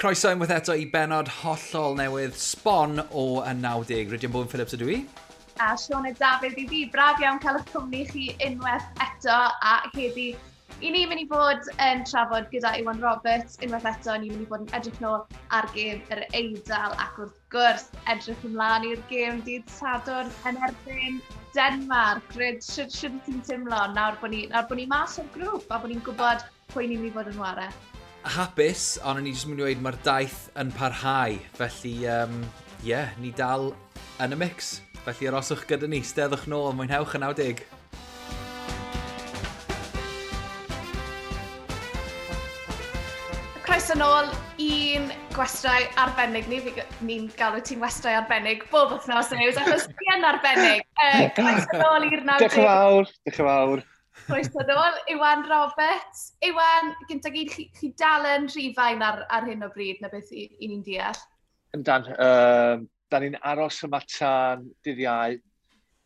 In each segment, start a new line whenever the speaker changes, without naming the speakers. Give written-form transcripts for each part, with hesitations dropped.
Croeso unwaith eto i benod hollol newydd sbon o y 90. Rhydian Bowen Phillips ydw i.
A Sioned Dafydd i fi. Braf iawn cael eich cwmni chi unwaith eto a heddi. I ni'n mynd i fod yn trafod gyda Iwan Roberts unwaith eto. Ni'n mynd i fod yn edrych nôl ar gêm yr Eidal ac wrth gwrs edrych ymlaen i'r gêm dydd Sadwrn yn erbyn Denmark. Ryd, sut ti'n teimlo nawr bod ni, nawr bod ni mas o'r grŵp a bod ni'n gwybod pwy ni'n mynd i fod yn ware?
Hapus, ond o'n i jyst mynd i weud mae'r daith yn parhau. Felly, yeah, ni dal yn y mix. Felly aroswch gyda ni, steddwch nôl, mwynhewch y 90.
Croeso nôl i'n gwestau arbennig ni. Ni'n galw ti'n westau arbennig bob wythnos news, achos ti yn arbennig. Croeso nôl i'r 90.
Diolch yn fawr, diolch yn fawr.
Croeso nôl, Iwan Roberts. Iwan, gynta gyd, chi dal yn Rhufain ar hyn o bryd, na beth i ni'n deall?
Yndan, da ni'n aros yma tan dydd Iau,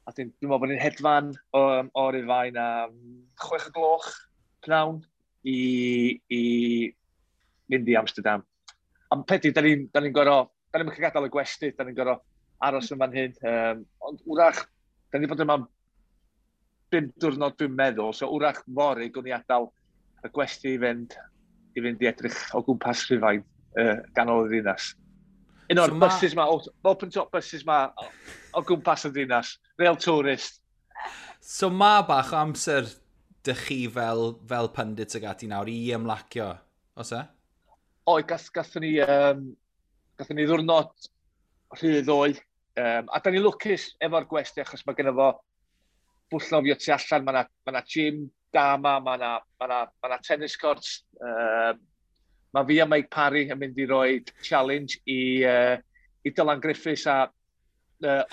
a dwi'n meddwl bod ni'n hedfan o Rufain am 6 o'gloch pnawn i mynd i Amsterdam. Am peth yw, da ni'n gorfod, da ni'n cael gadael y gwesty, da ni'n gorfod aros yn fan hyn. Ond wrach, da ni wedi bod yma 5 diwrnod dwi'n meddwl, so wrach fory gwn i adael y gwesty i fynd i edrych o gwmpas Rhufain, ganol y ddinas. Un o'r buses ma, open top buses ma o gwmpas y ddinas, real tourist.
So ma bach o amser dych chi fel pundit ag ati nawr i ymlacio, oes e?
Oe, gathon ni ddiwrnod rhydd ddoe. A da ni lwcus efo'r gwesty achos mae genno fo bwll nofio tu allan, mae 'na gym da yma, mae 'na tennis courts. Mae fi a Mike Parry yn mynd i roi challenge i Dylan Griffiths a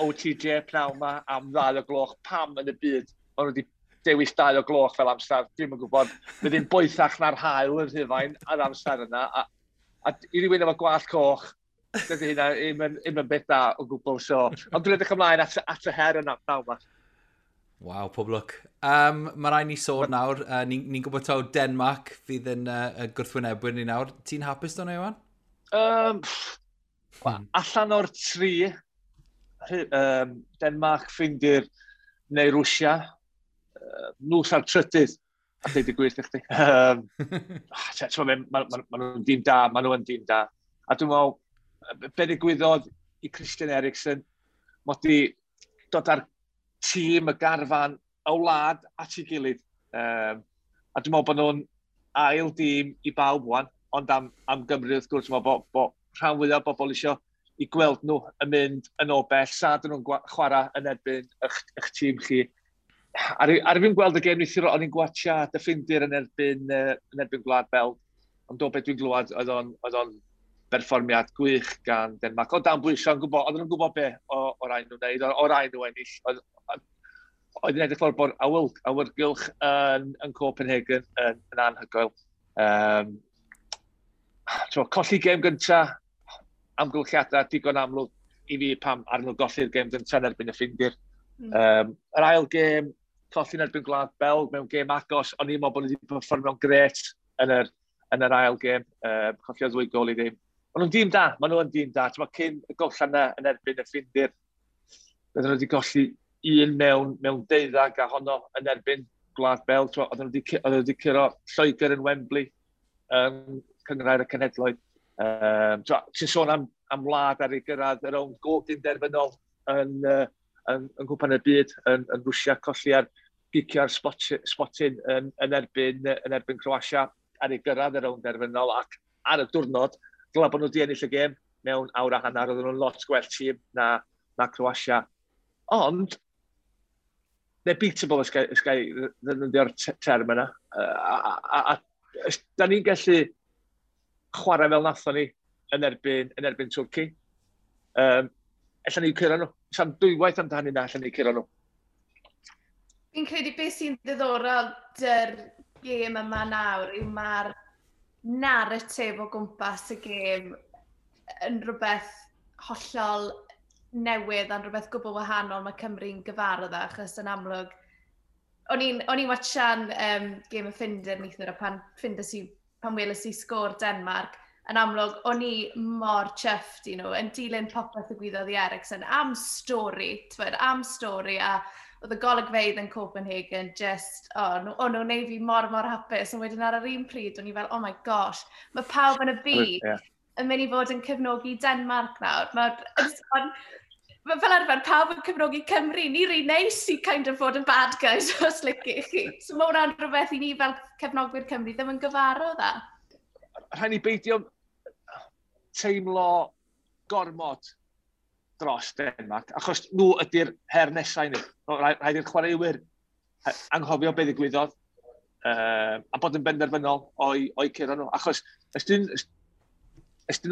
OTJ pnawn yma am 2 o'gloch. Pam yn y byd maen nhw wedi dewis 2 o'gloch fel amser, dwi'm yn gwybod. Bydd hi'n boethach na'r haul yn Rhufain ar amser yna. A i rywun efo gwallt coch, dydy hynna ddim yn beth da o gwbl. So, ond dwi'n edrych ymlaen at y her yna pnawn yma.
Waw, pob lwc. Mae rhaid ni sôn nawr, ni'n gwybod taw Denmark fydd yn gwrthwynebwyr ni nawr. Ti'n hapus do'n Iwan?
Allan o'r tri, Denmark, Ffindir neu Rwsia, nhw sa'r trydydd, a dweud y gwir i chdi. Ma nhw'n dîm da, ma nhw yn dîm da. A dwi'n meddwl, be ddigwyddodd i Christian Eriksen, mod i dod ar tîm y garfan y wlad at ei gilydd. A dwi'n meddwl bod nhw'n ail dîm i bawb wan, ond am Gymru wrth gwrs, dwi'n meddwl bod rhan fwyaf o bobl isio i gweld nhw yn mynd yn o bell, sa dyn nhw'n chwarae yn erbyn eich tîm chi. Ar i fi'n gweld y gêm neithiwr, o'n i'n gwatcha y Ffindir yn erbyn Gwlad Belg, ond o beth dwi'n glywed, oedd o'n berfformiad gwych gan Denmark. O dan bwysau, oedden nhw'n gwybod be o rai nhw'n wneud, o rai nhw ennill. Oedd yn edrych fel bod awyrgylch yn Copenhagen yn anhygoel. Colli gêm gynta, amgylchiadau digon amlwg i fi pam ar nhw golli'r gêm gynta yn erbyn y Ffindir. Yr ail gêm, colli yn erbyn Gwlad Belg mewn gêm agos, o'n i'n meddwl bod nhw wedi perfformio'n grêt yn yr ail gêm, colli o 2 gôl i ddim. Maen nhw'n dîm da, maen nhw yn dîm da. T'mo, cyn y gollan yna yn erbyn y Ffindir, bydden nhw wedi golli un mewn 12 a honno yn erbyn Gwlad Belg. T'mo, oedden nhw wedi curo Lloegr yn Wembley, yn Cynghrair y Cenhedloedd. Ti'n sôn am wlad ar ei gyrraedd yr rownd gyn derfynol yn Nghwpan y Byd yn Rwsia, colli ar gicio ar spotyn yn erbyn Croatia ar ei gyrraedd y rownd derfynol ac ar y diwrnod, dylai bod nhw wedi ennill y gêm mewn awr a hanner, oedden nhw'n lot gwell tîm na Croatia. Ond, they're beatable, os ga i ddefnyddio'r term yna. A da ni'n gallu chwarae fel nathon ni yn erbyn Twrci. Ella ni curo nhw. Sa'n dwywaith amdani na, ella ni curo nhw.
Fi'n credu beth sy'n ddiddorol dy'r gêm yma nawr yw mae'r narratif o gwmpas y gêm yn rhywbeth hollol newydd a'n rhywbeth gwbl wahanol mae Cymru'n gyfarwydd â, achos yn amlwg o'n i'n watchan gêm y Ffindir neithiwr, a pan weles i sgôr Denmark, Yn amlwg, o'n i mor chuffed i nhw, yn dilyn popeth y gwyddoedd i Eriksen, am stori, t'wod, am stori, a oedd y golygfeydd yn Copenhagen just, oh, o'n nhw'n neud fi mor, mor hapus, ond wedyn ar yr un pryd, o'n i fel, "Oh my gosh, mae pawb yn y byd yn mynd i fod yn cefnogi Denmark nawr." Mae fel arfer pawb yn cefnogi Cymru, ni rhy neis i kind of fod yn bad guys os liciwch chi. So mae hwnna'n rhywbeth i ni fel cefnogwyr Cymru ddim yn gyfarwydd â.
Rhaid ni beidio teimlo gormod dros Denmark, achos nhw ydy'r her nesau ni. Rhaid i'r chwaraewyr anghofio beth ddigwyddodd a bod yn benderfynol o'i curo nhw. Achos os dyn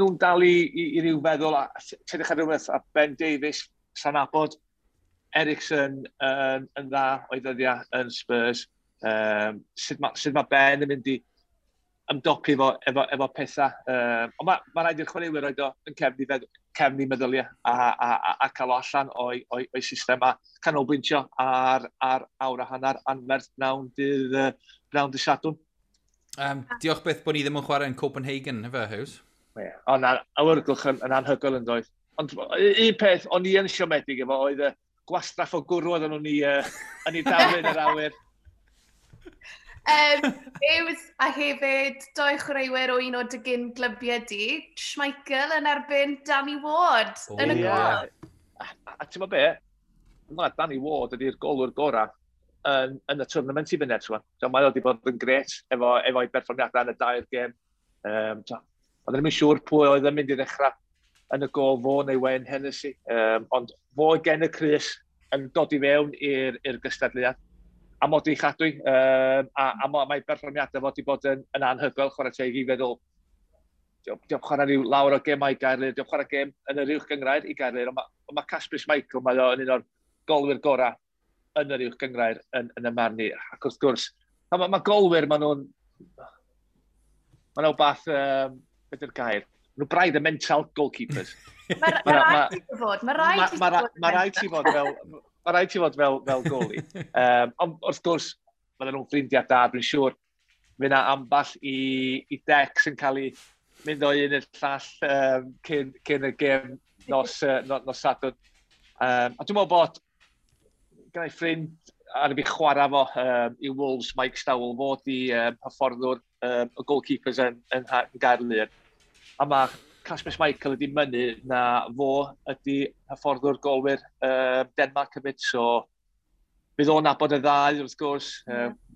nhw'n dal i ryw feddwl, a tedrych ar rhywbeth, a Ben Davies, sa'n nabod Eriksen yn dda o'i ddyddiau yn Spurs, sut ma Ben yn mynd i ymdopi efo pethau. Ond ma rhaid i'r chwaraewyr roed o yn cefn i meddyliau a cael o allan o'i system a canolbwyntio ar awr a hanner anferth pnawn dydd Sadwrn.
Diolch byth bod ni ddim yn chwarae yn Copenhagen, efe, Hughes?
Yeah. O na, awyrgylch yn anhygoel yn doedd. Ond un peth o'n i yn siomedig efo oedd y gwastraff o gwrw oedden nhw'n yn ei daflu yn yr awyr.
Hughes a hefyd doi chwaraewyr o un o dy gyn glybiau di, Schmeichel yn erbyn Danny Ward yn y gol.
A ti'n be? Mae Danny Ward ydy'r golwr gorau yn y tournament i fyny eto. So, mae o wedi bod yn gret efo'i berfformiadau yn y dair gêm. So, oedden ni'n siŵr pwy oedd yn mynd i ddechrau yn y gol, fo neu Wayne Hennessy. Ond fo gen y crys yn dod i fewn i'r gystadleuaeth. A mod i chadwy. A mae berfformiadau fo wedi bod yn anhygoel, chwarae teg i feddwl. Diolch chwarae rhyw lawr o gemau i Gaerlŷr, diolch chwarae gem yn yr uwch gyngrair i Gaerlŷr, ond ma Kasper Schmeichel, mae o yn un o'r golwyr gorau yn yr uwch gyngrair yn y marn i. Ac wrth gwrs, ma golwyr, maen nhw'n beth, beth yw'r gair? Nhw braidd y mental goalkeepers.
Mae rhaid i fod, mae rhaid i fod.
Mae rhaid ti fod fel goalie. Ond wrth gwrs, maen nhw'n ffrindiau da, dwi'n siŵr. Fydd yna amball i decs yn cael ei mynd o un i'r llall cyn y gêm nos Sadwrn. A dwi'n meddwl bod gyda'i ffrind ar fi chwarae fo i Wolves, Mike Stowell, fod i hyfforddwr y goalkeepers yn Gaerlŷr. A mae Kasper Schmeichel ydi mynnu na fo ydi hyfforddwr golwyr Denmark hefyd, so bydd o'n nabod y ddau wrth gwrs.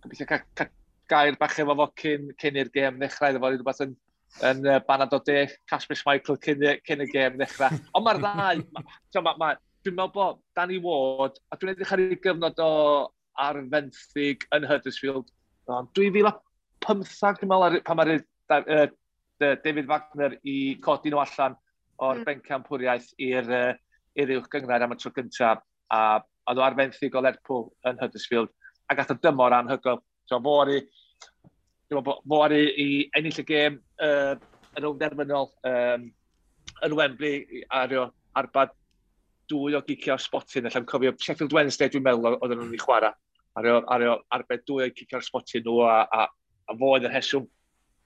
Gobeithio cael gair bach efo fo cyn i'r gêm ddechrau, iddo fo rhywbeth yn banad o de, Kasper Schmeichel cyn y gêm ddechrau. Ond mae'r ddau, dwi'n meddwl bod Danny Ward, a dwi'n edrych ar ei gyfnod o ar fenthyg yn Huddersfield, ond 2015, dwi'n meddwl, pan mae'r David Wagner i codi nhw allan o'r bencampwriaeth i'r uwch gyngrair am y tro gyntaf, a oedd o ar fenthyg o Lerpwl yn Huddersfield, a gath o dymor anhygoel. So dwi'n meddwl bod fo ar i ennill y gêm yn rownd derfynol yn Wembley ar arbad dwy o giciau sbotyn. Allai'n cofio Sheffield Wednesday, dwi'n meddwl, oedden nhw'n ei chwarae. Ar arbed dwy o gicio'r sbotyn nhw a fo oedd y rheswm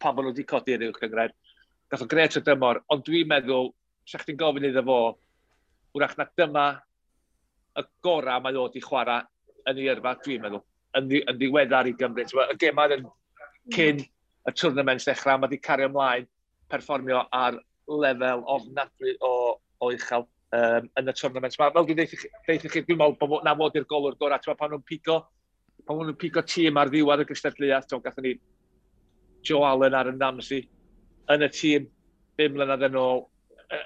pam bod nhw wedi codi i'r uwch gyngrair. Gath o gret o dymor, ond dwi'n meddwl, sa chdi'n gofyn iddo fo, wrach na dyma y gorau mae o wedi chwarae yn ei yrfa, dwi'n meddwl, yn ddiweddar i Gymru. Y gemau yn cyn y tournament dechrau, mae wedi cario ymlaen perfformio ar lefel ofnadwy o uchel yn y tournament. Ma, fel dwi'n deutha chi, dwi'n meddwl bod na fod i'r golwr gorau. Ti'n meddwl pan nhw'n pigo tîm ar ddiwedd y gystadleuaeth, ti'n gathon ni Joe Allen Aaron Ramsey yn y tîm 5 mlynedd yn ôl.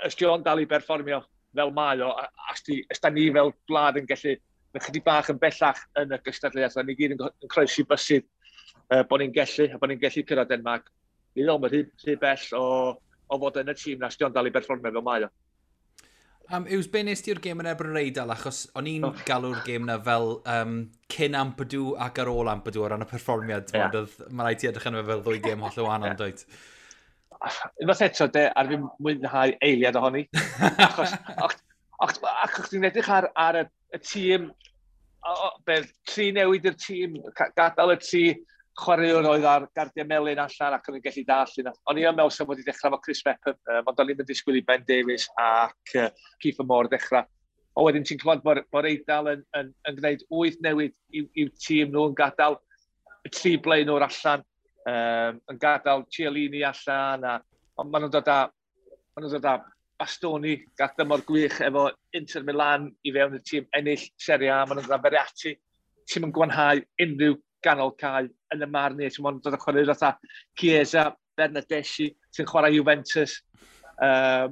Ys Joe'n dal i berfformio fel mae o, a os da ni fel gwlad yn gallu yn chydig bach yn bellach yn y gystadleuaeth, a ni gyd yn croesi bysydd bod ni'n gallu, a bod ni'n gallu cyrraedd Denmark. Ni ddol, mae rhy bell o fod yn y tîm na, os Joe'n dal i berfformio fel mae o.
Yws, be nes ti'r gêm yn erbyn yr Eidal, achos o'n i'n galw'r gêm na fel cyn Ampadu ac ar ôl Ampadu o ran y perfformiad. Yeah. Mae rhaid ti edrych arno fe fel ddwy gêm hollol wahanol, yeah. Dwyt?
Unwaith eto, de, ar fi mwynhau eiliad ohoni. Achos ti'n edrych ar y tîm, beth, tri newid i'r tîm, gadael y tri Chwaraewr oedd ar gardiau melyn allan ac o'n i'n gallu dall yna. O'n i yn meddwl sef wedi dechrau efo Chris Mepham, ond o'n i'n mynd disgwyl i Ben Davies ac Keith Moore dechrau. O wedyn ti'n clywed bod Eidal yn gwneud 8 newid i'w tîm nhw, yn gadael y 3 blaenwr allan, yn gadael Chiellini allan, ond maen nhw'n dod â Bastoni, gath dymor gwych efo Inter Milan i fewn y tîm ennill Serie A, maen nhw'n dod â Verratti, tîm yn gwanhau unrhyw ganol cae yn y marn i, ti'n dod â chwarae fatha Chiesa, Bernardeschi, sy'n chwarae Juventus. A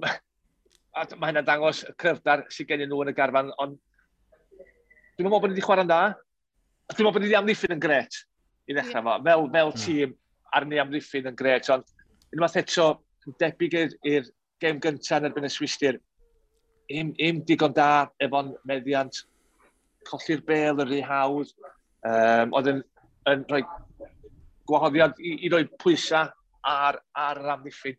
mae hynna'n dangos y cryfder sydd gen nhw yn y garfan, ond dwi'n meddwl bod ni wedi chwarae'n dda. Dwi'n meddwl bod ni wedi amddiffyn yn gret i ddechrau fo. Fel tîm ar ni amddiffyn yn gret, ond unwaith eto, yn debyg i'r gêm gyntaf yn erbyn y Swistir, im digon da efo'n meddiant, colli'r bêl yn rhy hawdd, oedd yn rhoi gwahoddiad i roi pwysau ar yr amddiffyn.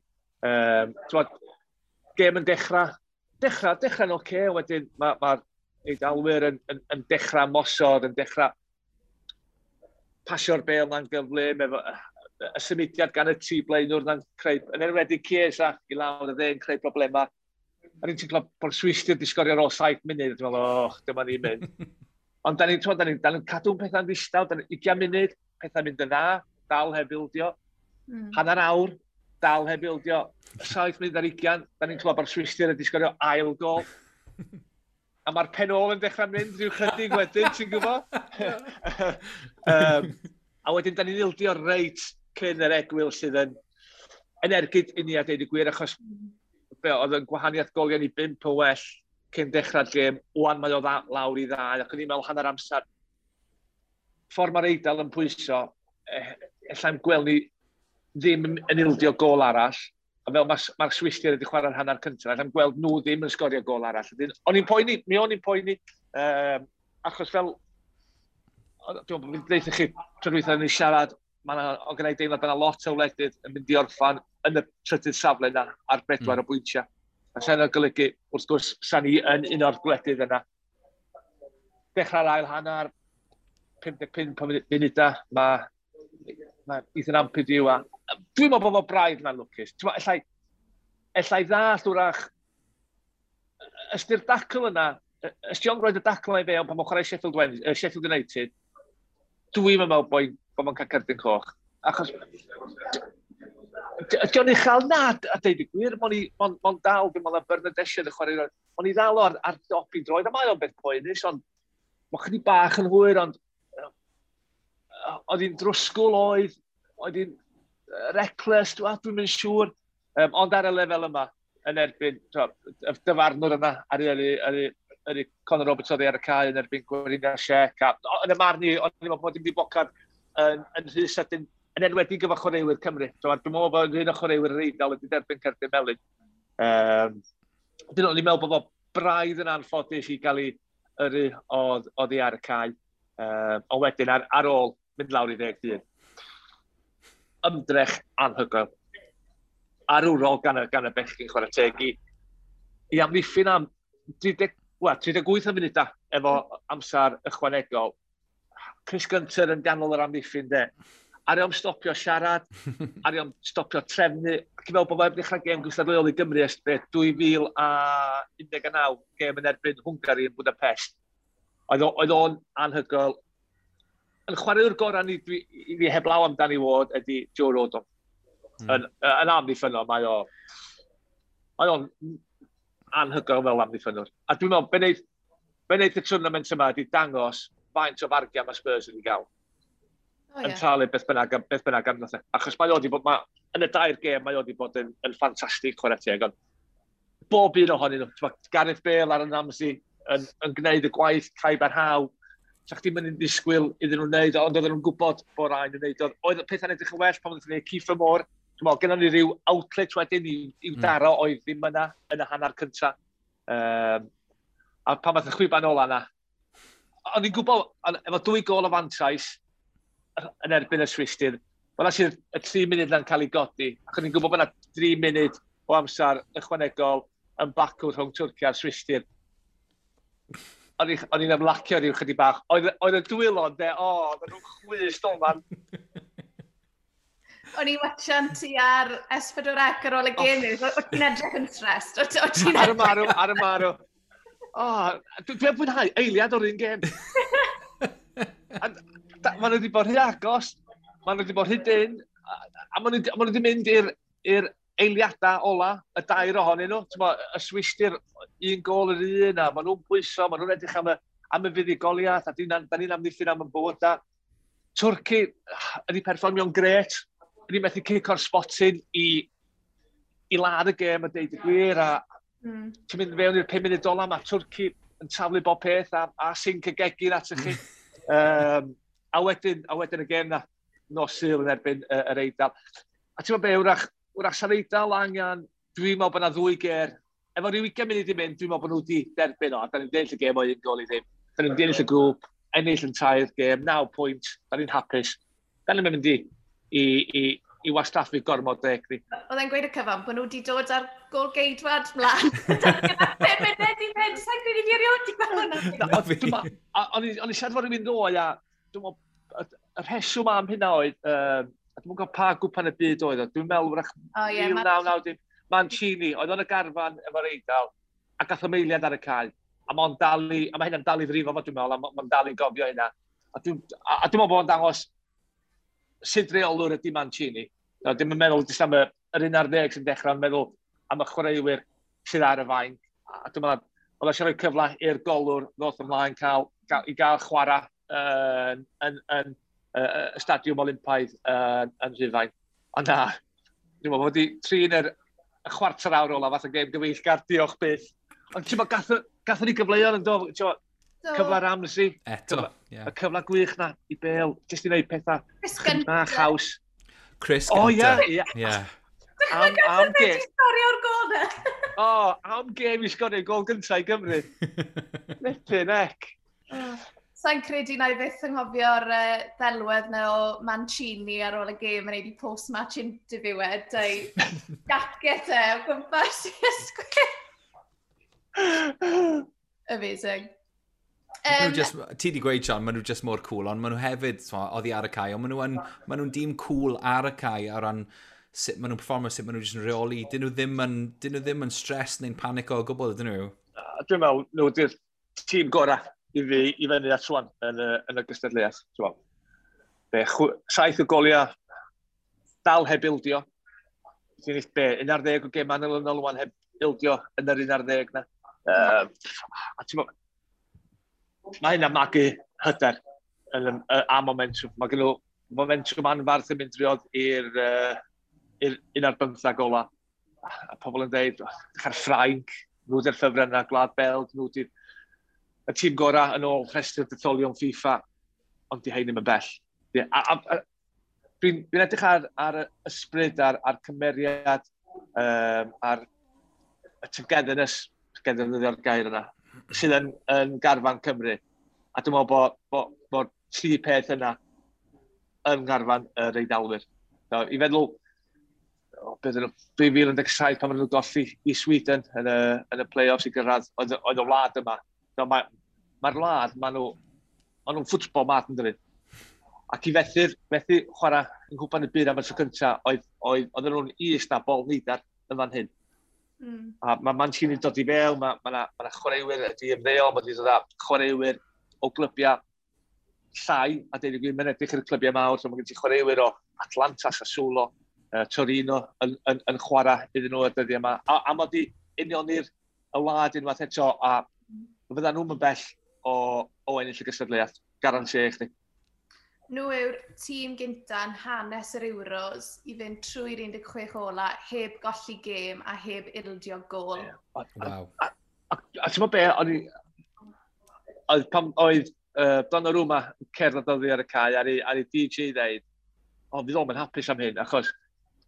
Gêm yn dechrau'n oce, wedyn mae'r Eidalwyr yn dechrau mosod, yn dechrau pasio'r bêl na'n gyflym, efo y symudiad gan y 3 blaenwr na'n creu, yn enwedig Chiesa i lawr y dde yn creu problemau. A ni'n teimlo bod Swistir wedi sgorio ar ôl 7 munud, dwi'n meddwl, oh, dyma ni'n mynd. Ond da ni'n cadw'n pethau'n ddistaw, 20 munud, pethau'n mynd yn dda, dal heb ildio. Hanner awr, dal heb ildio. 7 munud ar 20, da ni'n clywed bod Swistir wedi sgorio ail gol. A mae'r pen ôl yn dechrau mynd rhyw chydig wedyn, ti'n gwybod? A wedyn, da ni'n ildio reit cyn yr egwyl sydd yn ergyd i ni a deud y gwir, achos be, oedd yn gwahaniaeth goliau ni 5 o well cyn dechrau'r gêm, wan mae o lawr i 2, ac o'n i'n meddwl hanner amser. Ffordd mae'r Eidal yn pwyso, ellai'm gweld ni ddim yn ildio gol arall, a fel mae'r Swistir wedi chwarae'r hanner cyntaf, ellai'm gweld nhw ddim yn sgorio gol arall. O'n i'n poeni, mi o'n i'n poeni, achos fel, dwi'n meddwl, dweud chi, tro dwytha ni siarad, o gen i deimlad bod yna lot o wledydd yn mynd i orffan yn y trydydd safle yna ar 4 o bwyntiau. A sa'n golygu, wrth gwrs, sa'n ni yn un o'r gwledydd yna. Dechrau'r ail hanner, 55 munudau, mae Ethan Ampadu a... Dwi'n meddwl bod o braidd na'n lwcus. Ellai ddall wrach, ystyr dacl yna, ysdi o'n roed y dacl yna i fewn pan mae'n chwarae Sheffield United, dwi'n meddwl bod mae'n cael cerdyn coch. Achos, ydy o'n uchel na, a deud y gwir, mo'n dal, dwi'n meddwl na Bernardeschi yn y chwarae, mo'n i ddal ar dop i droed, a mae o'n beth poenus, ond mae'n chydig bach yn hwyr, ond oedd hi'n drwsgwl oedd hi'n reckless, dwi'n mynd siŵr, ond ar y lefel yma, yn erbyn, y dyfarnwr yna, ar Conor Roberts oedd ar y cae yn erbyn Gweriniaeth Siec, a yn y marn i, o'n i'n meddwl bod dim wedi bocad yn rhy sydyn, yn enwedig efo chwaraewyr Cymru. Dwi'n meddwl bod un o chwaraewyr yr Eidal wedi derbyn cerdyn melyn. Dwi'n meddwl bod o braidd yn anffodus i gael ei yrru oddi ar y cae. Ond wedyn ar ôl mynd lawr i 10 dyn. Ymdrech anhygoel. Arwrol gan y bechgyn chwarae teg i amddiffyn am 38 o munudau efo amser ychwanegol. Chris Gunter yn ganol yr amddiffyn de. Ar iom stopio siarad, ar iom stopio trefnu. Ac i fel bod fe'n dechrau gêm gystadleuol i Gymru ers 2019, gêm yn erbyn Hwngari yn Budapest. Oedd o'n anhygoel. Yn chwaraewr gorau ni, i fi heblaw am Danny Ward ydy Joe Rodon. Yn amddiffynnol, mae o'n anhygoel fel amddiffynnwr. A dwi'n meddwl, be wneud y tournament yma ydy dangos faint o fargiau mae Spurs wedi gael. Yn talu beth bynnag amdano. Achos mae o wedi bod, yn y dair gêm, mae o wedi bod yn ffantastig chwarae teg, ond bob un ohonyn nhw, Gareth Bale, Aaron Ramsey, yn gwneud y gwaith caib ar haw, sa chdi'n mynd yn disgwyl iddyn nhw'n wneud, ond oedden nhw'n gwybod bod rhaid yn wneud. Oedd pethau'n edrych yn well pan oedden nhw'n gwneud Kiefer Moore. Dwi'n meddwl, gennon ni ryw outlet wedyn i'w daro oedd ddim yna yn y hanner cyntaf. A pan fath y chwiban ola yna, o'n i'n gwybod, efo 2 gôl o fantais yn erbyn y Swistir, fel sydd y 3 munud na'n cael ei godi, ac o'n i'n gwybod bod yna 3 munud o amser ychwanegol yn bacw rhwng Twrci a'r Swistir. O'n i'n ymlacio rhyw chydig bach. Oedd y dwylo, de, oedden nhw'n chwys doman.
O'n i'n watchan ti ar S4C ar ôl y gêm. O ti'n edrych yn stressed?
Ar y marw, ar y marw. Oh, dwi'n fwynhau eiliad o'r un gêm. Maen nhw wedi bod rhy agos, maen nhw wedi bod rhy dyn, a maen nhw wedi mynd i'r eiliadau ola, y dair ohonyn nhw. T'mo, y Swistir, un gol yr un, a maen nhw'n pwyso, maen nhw'n edrych am y fuddugoliaeth, a da ni'n amddiffyn am y bywydau. Twrci ydi perfformio'n gret, ydi methu cic o'r spotyn i ladd y gêm a deud y gwir, a ti'n mynd fewn i'r 5 munud ola, mae Twrci yn taflu bob peth a sinc y gegin at chi. A wedyn y gêm na, nos Sul yn erbyn yr Eidal. A ti'n meddwl be, wrach sa'r Eidal angen, dwi'n meddwl bod yna ddwy ger, efo rhyw 20 munud i mynd, dwi'n meddwl bod nhw wedi derbyn o, a da ni'n ennill y gêm o 1 gôl i ddim. Da ni'n ennill y grŵp, ennill yn tair gêm, 9 pwynt, da ni'n hapus. Da ni'n mynd i wastraffu gormod o egni.
Oedd e'n gweud y cyfan bod nhw wedi dod ar gol geidwad mlaen. 5 munud i fynd, sa'n credu fi erioed wedi gweld hwnna.
O'n i siarad fod rhywun ddoe, a dwi'n meddwl, y rheswm am hynna oedd, a dwi'n gwybod pa gwpan y byd oedd o, dwi'n meddwl wrach
O ie,
1990, Mancini, oedd o'n y garfan efo'r Eidal, a gath o eiliad ar y cae. A mae'n dal i, a mae hynna'n dal i frifo fo, dwi'n meddwl, a mae'n dal i gofio hynna. A dwi'n meddwl bod o'n dangos sut reolwr ydy Mancini. No, dim yn meddwl jyst am yr 11 sy'n dechrau, ond meddwl am y chwaraewyr sydd ar y fainc. A dwi'n meddwl, oedd eisiau rhoi cyfle i'r golwr ddod ymlaen i gael chwarae yn y Stadiwm Olympaidd yn Rhufain. Ond na, dwi'n meddwl bod wedi trin y chwarter awr ola fath o gêm gyfeillgar, diolch byth. Ond ti'n meddwl, gathon ni gyfleoedd yn do, ti'n meddwl, cyfle Ramsey,
Eto,
ie. Y cyfle gwych na i Bale, jyst i wneud pethau
Chris
na
Gunter.
Haws.
Chris
O,
Gunter.
ie.
Ie.
Am
Wedi
gêm.
sgorio o'r gol na.
O, am gêm i sgorio gol gyntaf i Gymru. Flippin' heck.
Sa'n credu na i fyth anghofio'r ddelwedd na o Mancini ar ôl y gêm yn ei di post-match interview e, dau jacket e o gwmpas i ysgwydd. Amazing.
Just, ti di gweud, Sean, maen nhw just mor cool, ond maen nhw hefyd, t'mo, oddi ar y cae, ond maen nhw'n dîm cool ar y cae o ran sut maen nhw'n performio, sut maen nhw jyst yn rheoli. Dyn nhw ddim yn stress neu'n panico o gwbl, ydyn nhw?
A dwi'n meddwl, nhw ydy'r tîm gorau i fi i fyny at rwan yn y gystadleuaeth. Ti'n meddwl. Be, 7 o goliau, dal heb ildio. Ti'n eich be, 11 o gemau yn olynol rwan heb ildio yn yr 11 na. A ti'n meddwl, mae hynna magu hyder a momentum. Mae gen nhw momentum anfarth yn mynd driodd i'r 11 ola. A pobl yn dweud, dechrau'r Ffrainc, nhw di'r ffefryn yna, Gwlad Belg, nhw di'r y tîm gorau yn ôl rhestr detholion FIFA, ond di hein ddim yn bell. Ie, a dwi'n edrych ar y ysbryd, ar cymeriad, ar y togetherness, togetherness yw'r gair yna, sydd yn garfan Cymru. A dwi'n meddwl bod tri peth yna yn garfan yr Eidalwyr. So, i feddwl, o, beth yn 2017 pan maen nhw'n golli i Sweden yn y play-offs i gyrraedd, oedd y wlad yma. So, mae'r wlad, ma nhw'n football mad yn dydyn. Ac i fethu chwarae yng Nghwpan y Byd am y tro cyntaf, oedden nhw'n is na bol neidar yn fan hyn. A mae Mancini'n dod i fewn, mae ma chwaraewyr wedi ymddeol, mae wedi dod â chwaraewyr o glybiau llai, a deud y gwir, mae'n edrych i'r clybiau mawr, so mae gen ti chwaraewyr o Atlanta, Sassuolo, Torino yn chwarae iddyn nhw y dyddiau yma. A mae wedi unioni'r y wlad unwaith eto, a fydda nhw'n bell o ennill y gystadleuaeth, garanti i chdi.
Nhw yw'r tîm gynta yn hanes yr Euros i fynd trwy'r 16 ola heb golli gêm a heb ildio gol.
Ie. A ti'n meddwl be, oedd, pan oedd Donnarumma yn cerdded oddi ar y cae ar ei DJ ddeud, o, fydd o'm yn hapus am hyn, achos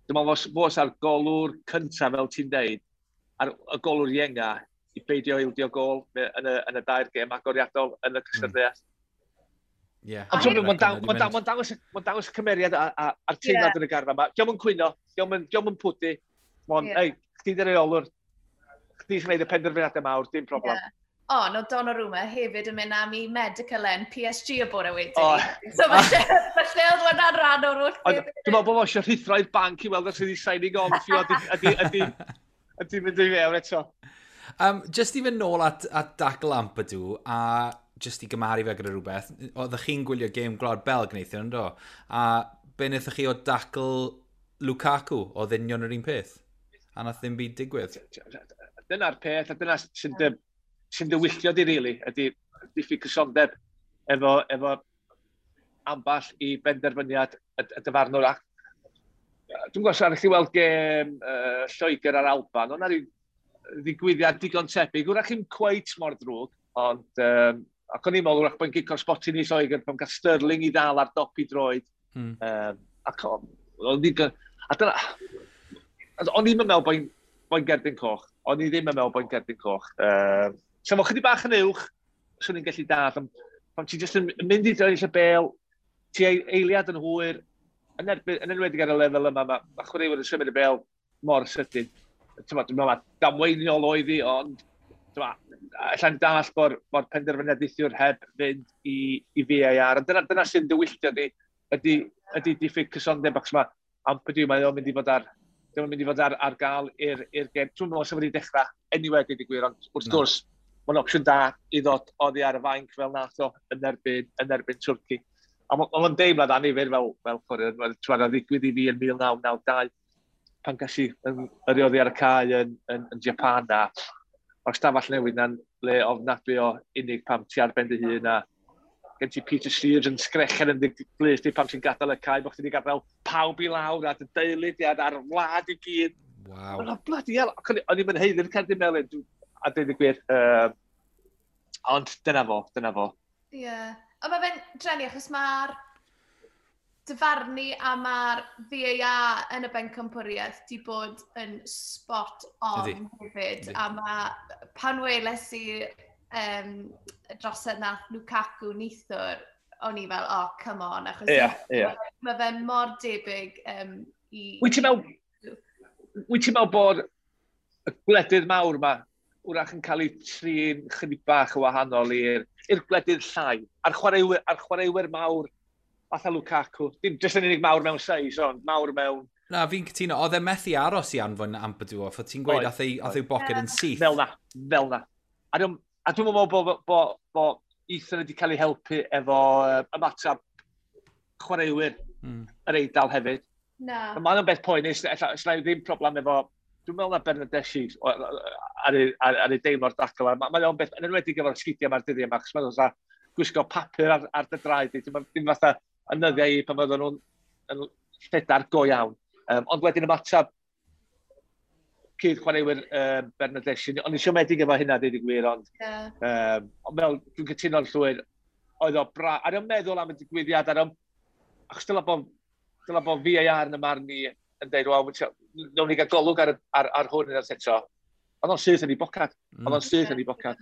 dwi'n meddwl fos ar golwr cyntaf, fel ti'n deud, ar y golwr ienga, i beidio ildio gol yn y dair gêm agoriadol yn y cystadleuaeth. Ond ti'n meddwl, mae'n dangos y cymeriad a'r teimlad yn y garfan yma. Dio'm yn cwyno, dio'm yn pwdu. Mae'n, ei, chdi di'r reolwr, chdi sy'n gwneud y penderfyniadau mawr, dim problem.
Ond oedd Donnarumma hefyd yn mynd am i medical yn PSG y bore wedyn. Oh. So falle oedd hwnna'n rhan o'r holl.
Dwi'n meddwl bod fo eisiau rhuthro i'r banc i weld os ydi signing on fee ydi mynd i fewn eto.
Just i fynd nôl at dacl Ampadu, a just i gymharu fe gyda rhywbeth, oeddech chi'n gwylio gêm Gwlad Belg neithiwr, yndo? A be wnaethoch chi o dacl Lukaku, oedd union yr un peth? A nath ddim byd digwydd.
Dyna'r peth, a dyna sy'n dywylltio di, really, ydy diffyg cysondeb efo amball i benderfyniad y dyfarnwr. Ac dwi'n gwybod os chi weld gêm Lloegr a'r Alban, ond rhyw ddigwyddiad digon tebyg. Wrach chi'n cweit mor ddrwg, ond ac o'n i'n meddwl wrach bod yn gico'r sbotyn i Lloegr pan gael Sterling i ddal ar dop i droed. Ac o'n i'n a dyna, o'n i'n meddwl bod gerdyn coch. O'n i ddim yn meddwl bod gerdyn coch. So fo chydig bach yn uwch, swn i'n gallu dall, ond pan ti jyst yn mynd i droed y bel, ti eiliad yn hwyr, yn enwedig ar y lefel yma, mae chwaraewyr yn symud y bel mor sydyn. Dwi'n meddwl mae damweiniol oedd hi, ond alla'n dall bod penderfyniad neithiwr heb fynd i VAR. Ond dyna sy'n dywylltio di, ydy diffyg cysondeb, achos mae Ampadu, mae o'n mynd i fod ar ddim yn mynd i fod ar gael i'r gêm. Dwi'n meddwl sef wedi dechrau anyway, dweud y gwir, ond wrth gwrs, mae'n opsiwn da i ddod oddi ar y fainc fel nath o yn erbyn Twrci. A mae'n deimlad annifyr fel chwaraewr, mae'n ddigwydd i fi yn 1992, pan gas i yrru oddi ar y cae yn Japan a o'r stafell newydd na'n le ofnadwy o unig pam ti ar ben dy hun a gen ti Peter Shreeves yn sgrechen yn dy glust di pam ti'n gadael y cae, bod chdi wedi gadael pawb i lawr a dy deulu di a'r wlad i gyd.
Waw.
Oh, bloody hell. O'n i'n haeddu'r cerdyn melyn, a dweud y gwir. Ond dyna fo, dyna fo.
Ie. Yeah. Ond mae fe'n drueni achos mae'r dyfarnu a mae'r VAR yn y bencampwriaeth di bod yn spot on hefyd. A mae pan weles i drosedd nath Lukaku neithiwr, o'n i fel, "Oh, come on," achos
yeah.
mae fe mor debyg i.
Wyt ti'n meddwl bod y gwledydd mawr yma wrach yn cael eu trin chydig bach yn wahanol i'r gwledydd llai? A'r chwaraewyr mawr fatha Lukaku. Dim jyst yn unig mawr mewn seis, ond mawr mewn.
Na, fi'n cytuno. Oedd e methu aros i anfon Ampadu off. Oedd ti'n gweud ath ei boced yn syth.
Fel na, fel na. A dwi'n meddwl bo Ethan wedi cael ei helpu efo ymateb chwaraewyr yr Eidal hefyd.
Na.
Mae'n beth poenus, ella ddim problem efo. Dwi'n meddwl na Bernardeschi ar ei deimlo'r dacl. Mae o'n beth, yn enwedig efo'r sgidiau mae'r dyddiau yma, achos mae'n fatha gwisgo papur ar dy draed. Dim fatha yn nyddiau i pan oedden nhw'n yn lledar go iawn. Ond wedyn ymateb cyd chwaraewyr Bernardeschi. O'n i siomedig efo hynna, dweud y gwir, ond ond fel, dwi'n cytuno'n llwyr, oedd o bra... Ar o'n meddwl am y digwyddiad, ar o'n... Achos dyla bod VAR yn y marn ni yn dweud, "Wel, nawn ni gael golwg ar hwn yn eto." Oedd o'n syth yn ei bocad. Oedd o'n syth yn ei bocad.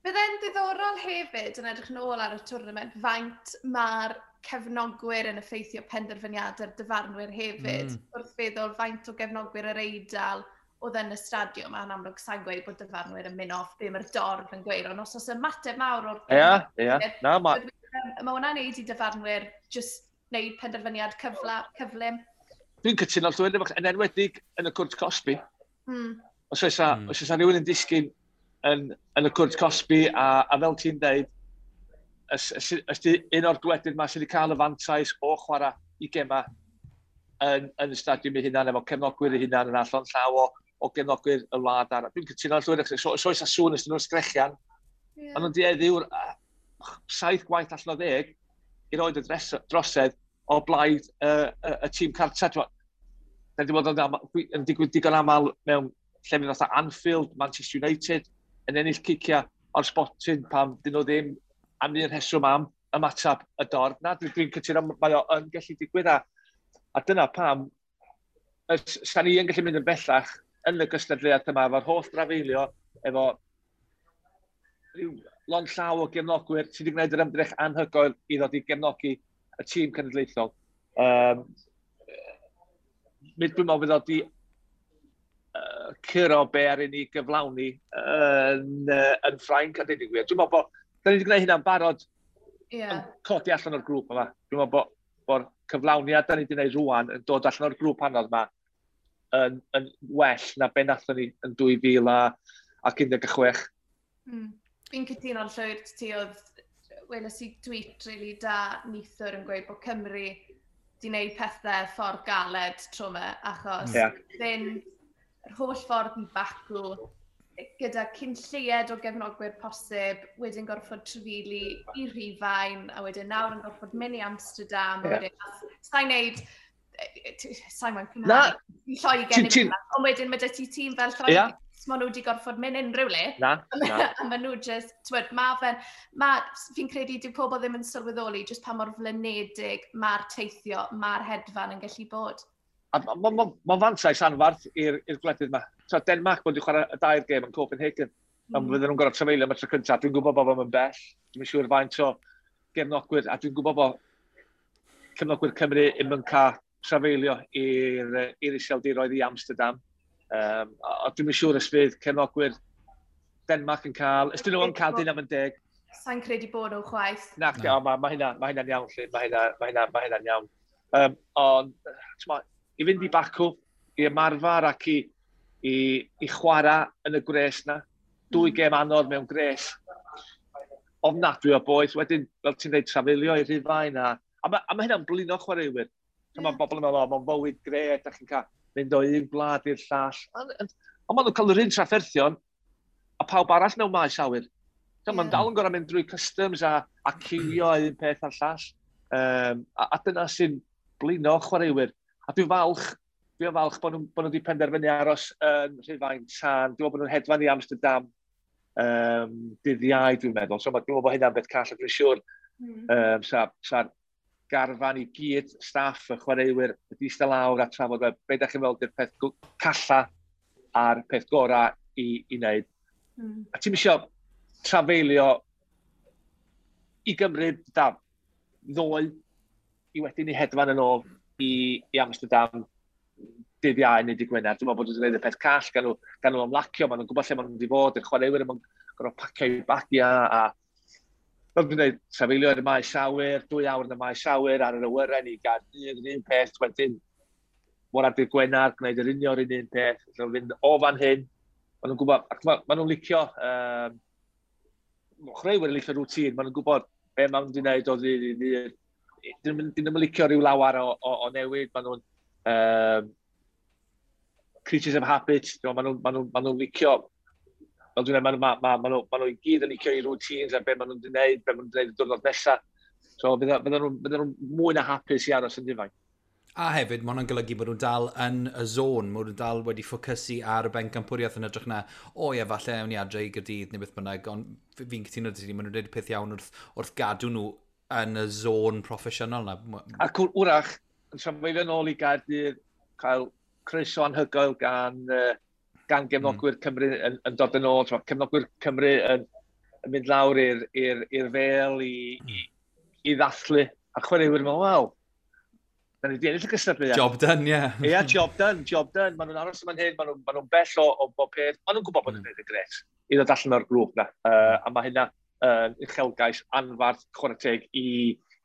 Bydd diddorol hefyd yn edrych yn ôl ar y tournament faint mae'r cefnogwyr yn effeithio penderfyniadau'r dyfarnwyr hefyd. Wrth feddwl faint o gefnogwyr yr Eidal oedd yn y stadiwm, a'n amlwg sa'n gweud bod dyfarnwyr yn mynd off be mae'r dorf yn gweud, ond os oes ymateb mawr o'r
Ie, ie. Na,
mae Mae hwnna'n neud i dyfarnwyr just wneud penderfyniad cyflym.
Dwi'n cytuno llwyr, yn enwedig yn y cwrt cosbi. Os oes rhywun yn disgyn yn y cwrt cosbi, a fel ti'n deud, os di un o'r gwledydd yma sydd wedi cael y fantais o chwarae i gema yn y stadiwm ei hunan, efo cefnogwyr ei hunan yn allan llaw o gefnogwyr y wlad arall. Dwi'n cytuno llwyr, so oes a sŵn ys nhw'n sgrechian, ond nhw'n dueddu 7 gwaith allan o 10 i roed y drosedd o blaid y tîm cartra. Da ni wedi bod yn digwydd digon aml mewn llefydd fatha Anfield, Manchester United, yn ennill ciciau o'r spotyn pam dyn nhw ddim am un rheswm am ymateb y dorf. Na, dwi'n dwi cytuno, mae o yn gallu digwydd a dyna pam sa ni yn gallu mynd yn bellach yn y gystadleuaeth yma efo'r holl drafeilio, efo rhyw lond llaw o gefnogwyr sydd wedi gwneud yr ymdrech anhygoel i ddod i gefnogi y tîm cenedlaethol. Dwi'n meddwl fydd o di curo be ar i ni gyflawni yn Ffrainc, a dweud y gwir. Dwi'n meddwl bod, da ni wedi gwneud hynna'n barod yn codi allan o'r grŵp yma. Dwi'n meddwl bod cyflawniad da ni wedi gwneud rwan yn dod allan o'r grŵp anodd yma yn well na be nathon ni yn 2016.
Fi'n cytuno'n llwyr ti oedd, weles i tweet really da neithiwr yn gweud bod Cymru di wneud pethau ffordd galed tro yma, achos fynd yr holl ffordd i Baku gyda cyn lleied o gefnogwyr posib, wedyn gorfod trafeili i Rhufain, a wedyn nawr yn gorfod mynd i Amsterdam, a wedyn, sa'n neud, sa'n moyn cymharu, i Lloegr, ond wedyn mae dy ti tîm fel Lloegr, maen nhw wedi gorfod mynd unrhyw le.
Na, na.
A maen nhw just, t'wod, fi'n credu dyw pobl ddim yn sylweddoli just pa mor flinedig mae'r teithio, mae'r hedfan yn gallu bod.
A ma fantais anfarth i'r gwledydd yma. So, Denmark bod wedi chwarae y dair gêm yn Copenhagen. A fydden nhw'n gorfod trafeilio am y tro cyntaf. Dwi'n gwybod bod o'n bell. Dwi'n siŵr faint o gefnogwyr, a dwi'n gwybod bod cefnogwyr Cymru ddim yn cael trafeilio i'r Iseldiroedd i Amsterdam. A dwi'n siŵr os fydd cefnogwyr Denmark yn cael, ys dyn nhw yn cael dyn am yn deg.
Sa'n credu bod nhw chwaith.
Na, ma hynna'n iawn, lle. Ma hynna'n iawn. Ond, t'mo, i fynd i Baku, i ymarfer ac i chwarae yn y gwres na. Dwy gêm anodd mewn gwres. Ofnadwy o boeth. Wedyn, fel ti'n dweud, trafeilio i Rhufain. A ma hynna'n blino chwaraewyr. Mae bobl yn meddwl, o, mae'n fywyd gret, da chi'n cael mynd o un gwlad i'r llall. Ond maen nhw'n cael yr un trafferthion a pawb arall mewn maes awyr. Maen dal yn gorfod mynd drwy customs a ciwio un peth a'r llall. A dyna sy'n blino chwaraewyr. A dwi'n falch bod nhw wedi penderfynu aros yn Rhufain tan. Dwi'n meddwl bod nhw'n hedfan i Amsterdam dydd Iau, dwi'n meddwl. So dwi'n meddwl bod hynna'n beth call, a dwi'n siŵr sa'r garfan i gyd, staff, y chwaraewyr, wedi eistedd lawr a trafod, be da chi'n meddwl di'r peth calla a'r peth gorau i wneud. A ti'n isio trafeilio i Gymru, da, ddoe, i wedyn i hedfan yn ôl i Amsterdam dydd Iau neu dydd Gwener. Dwi'n meddwl bod nhw'n gwneud y peth call, gan nhw ymlacio, maen nhw'n gwybod lle maen nhw'n mynd i fod, y chwaraewyr yn gorfod pacio i'w bagiau, a fel dwi'n dweud, trafeilio ar y maes awyr, 2 awr yn y maes awyr, ar yr awyren i Gaerdydd, yr un peth, wedyn mor ar dydd Gwener, gwneud yr union yr un peth, felly fynd o fan hyn, maen nhw'n gwybod, ac ma nhw'n licio, chwaraewyr yn licio routine, maen nhw'n gwybod be maen nhw'n wedi gwneud o ddydd i ddydd. Dyn nhw'n licio rhyw lawer o newid, maen nhw'n creatures of habit, maen nhw'n licio, fel dwi'n dweud, ma nhw i gyd yn licio i routines a be maen nhw'n gwneud, be maen nhw'n gwneud y diwrnod nesaf. So fydden nhw'n mwy na hapus i aros yn Rhufain.
A hefyd, mae hwnna'n golygu bod nhw'n dal yn y zone, mae nhw'n dal wedi ffocysu ar y bencampwriaeth yn edrych na, o ie, falle ewn ni adre i Gaerdydd neu beth bynnag, ond fi'n cytuno 'da ti, maen nhw'n dweud y peth iawn wrth gadw nhw yn y zone proffesiynol na.
Ac wrach, yn trafeilio nôl i Gaerdydd, cael croeso anhygoel gan gefnogwyr Cymru yn dod yn ôl, cefnogwyr Cymru yn mynd lawr i'r Vale i ddathlu, a chwaraewyr yn meddwl, wel, da ni wedi ennill y gystadleuaeth.
Job done, ie. Yeah.
Ie, yeah, job done, job done. Maen nhw'n aros yma'n hyn, maen nhw'n bell o bob peth. Maen nhw'n gwybod bod nhw'n gwneud y gret i ddod allan o'r grŵp na. A mae hynna yn uchelgais anfarth, chwarae teg, i